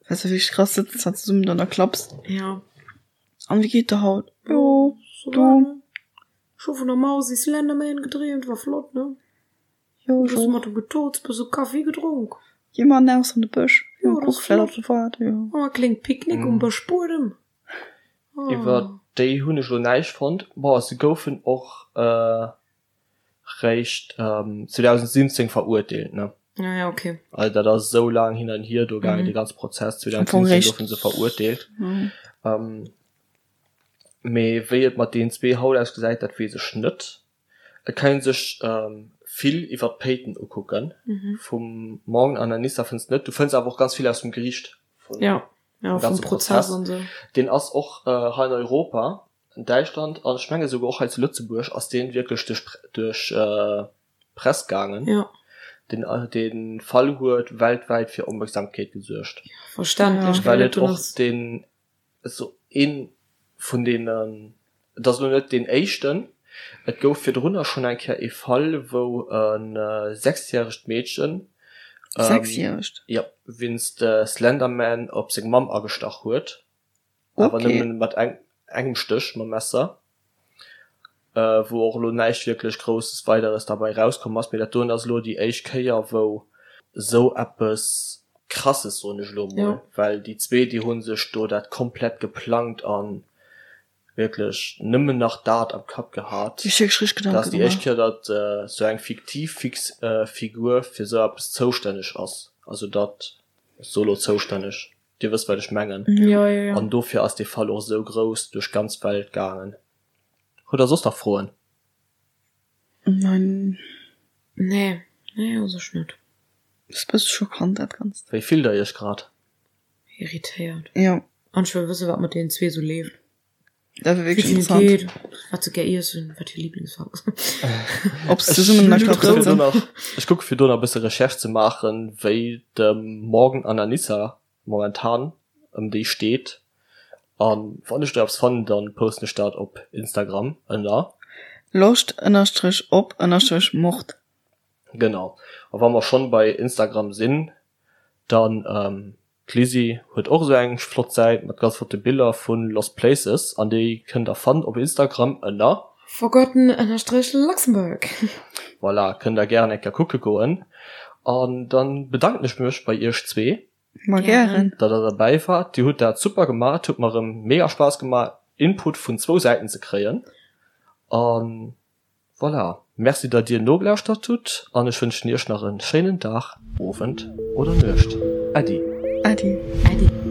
B: Dat ass wierklech krass, sëtzen zwar zesummen an der Klaps.
C: Ja.
B: An wéi geet der haut? Jo,
C: du. Ech hu vun der Mausi Slenderman gedreemt, war flott, ne?
B: Jo,
C: ech och. Mat dem getozt, bësse Kaffi gedronk.
B: Gi mer eraus an de Bësch.
C: Jo, dat ass flott. Jo. Oh, e kléngt Picknick um Bëschbuedem.
A: Oh. Iwwer déi hunn ech elo näischt fonnt. Bon, se goufen och réischt 2017 verurteelt, ne?
C: Ah ja, okay.
A: Also dat ass esou laang hin an hier do gaangen, dee ganze Prozess. 2017 goufe se verurteelt. Mee wéi et mat deenen zwee haut ausgesäit, dat weess ech net. Et kann een sech vill iwwer d'Péiten ukucken. Vum Morgan an Anissa fënns de net. Du fënns awer och ganz vill aus dem Geriicht
C: vum ja, ja,
A: ganze Prozess. Prozess. Deen ass och hei an Europa, an Däitschland an ech menge souguer och hei zu Lëtzebuerg ass deen wierklech duerch duerch d'Press gaangen.
C: Ja.
A: Den dee Fall huet weltwäit fir Opmerksamkeet gesuergt.
C: Ja, verständlech.
A: Well et och deen Esou een vun deenen, et ass elo net deen éischten, et gouf virdrunner schonn eng Kéier ee Fall, wou e sechsjäregt Meedchen,
B: Sechsjäregt?
A: jo, wéinst Slenderman op seng Mamm agestach huet, awer nëmmen mat engem Stéch mam Messer. Wou och elo näischt wierklech Grousses Weideres derbei erauskomm ass. Mee dat doen ass elo déi éischt Kéier, wou esou eppes Krasses, soen ech elo emol, well déi zwee, déi hu sech do dat komplett geplangt a wierklech nëmmen nach dat am Kapp gehat.
B: Dat
A: ass déi éischt Kéier, datt esou eng fiktiv Figur fir esou eppes zoustänneg ass. Also datt, ech soe elo zoustänneg, Dir wësst wat ech mengen.
C: Jo, jo, jo.
A: An dofir ass dee Fall och esou grouss duerch d'ganz Welt gaangen. Hutt der soss nach Froen?
B: Nein.
C: Nee, nee u sech net.
B: Ass bësse schockant dat Ganzt.
A: Wéi fillt der iech grad?
C: Irritéiert.
B: Jo.
C: An ech wëll wëssen wat mat deenen zwee sou leeft.
B: Dat wär wierklech interessant.
C: Wéi et hinne geet, wat se gär iessen, wat hir Liblingsfaarf ass.
B: Ob se zesummen an der Klass sëtzen.
A: Ech kucke fir do nach e bësse Recherche ze maachen, wéi dem Morgan an Anissa momentan ëm déi steet. An wann ech do eppes fannen, dann posten ech dat op Instagram ënner.
B: Loscht ënnerstrech op ënnerstrech Mord.
A: Genau. A wa mer schonn bei Instagram sinn, dann D'Lizzy huet och esou eng flott Säit mat ganz flotte Biller vu Lost Places an déi kënnt der fannen op Instagram ënner.
C: Forgotten ënnerstrech Luxembourg.
A: Voilà, kënnt der gären eng Kéier kucke goen. An dann bedanken ech mech bei iech zwee.
B: Ma gären.
A: Datt der derbäi waart. Dir hutt dat super gemaach. Et huet mer erëm mega Spaass gemaach Input vun zwou Säiten ze kréien. An Voilà, merci dat dir nogelauschtert hutt an ech wënschen iech nach en schéinen Dag, Owend oder Nuecht. Äddi.
B: Äddi.
C: Äddi.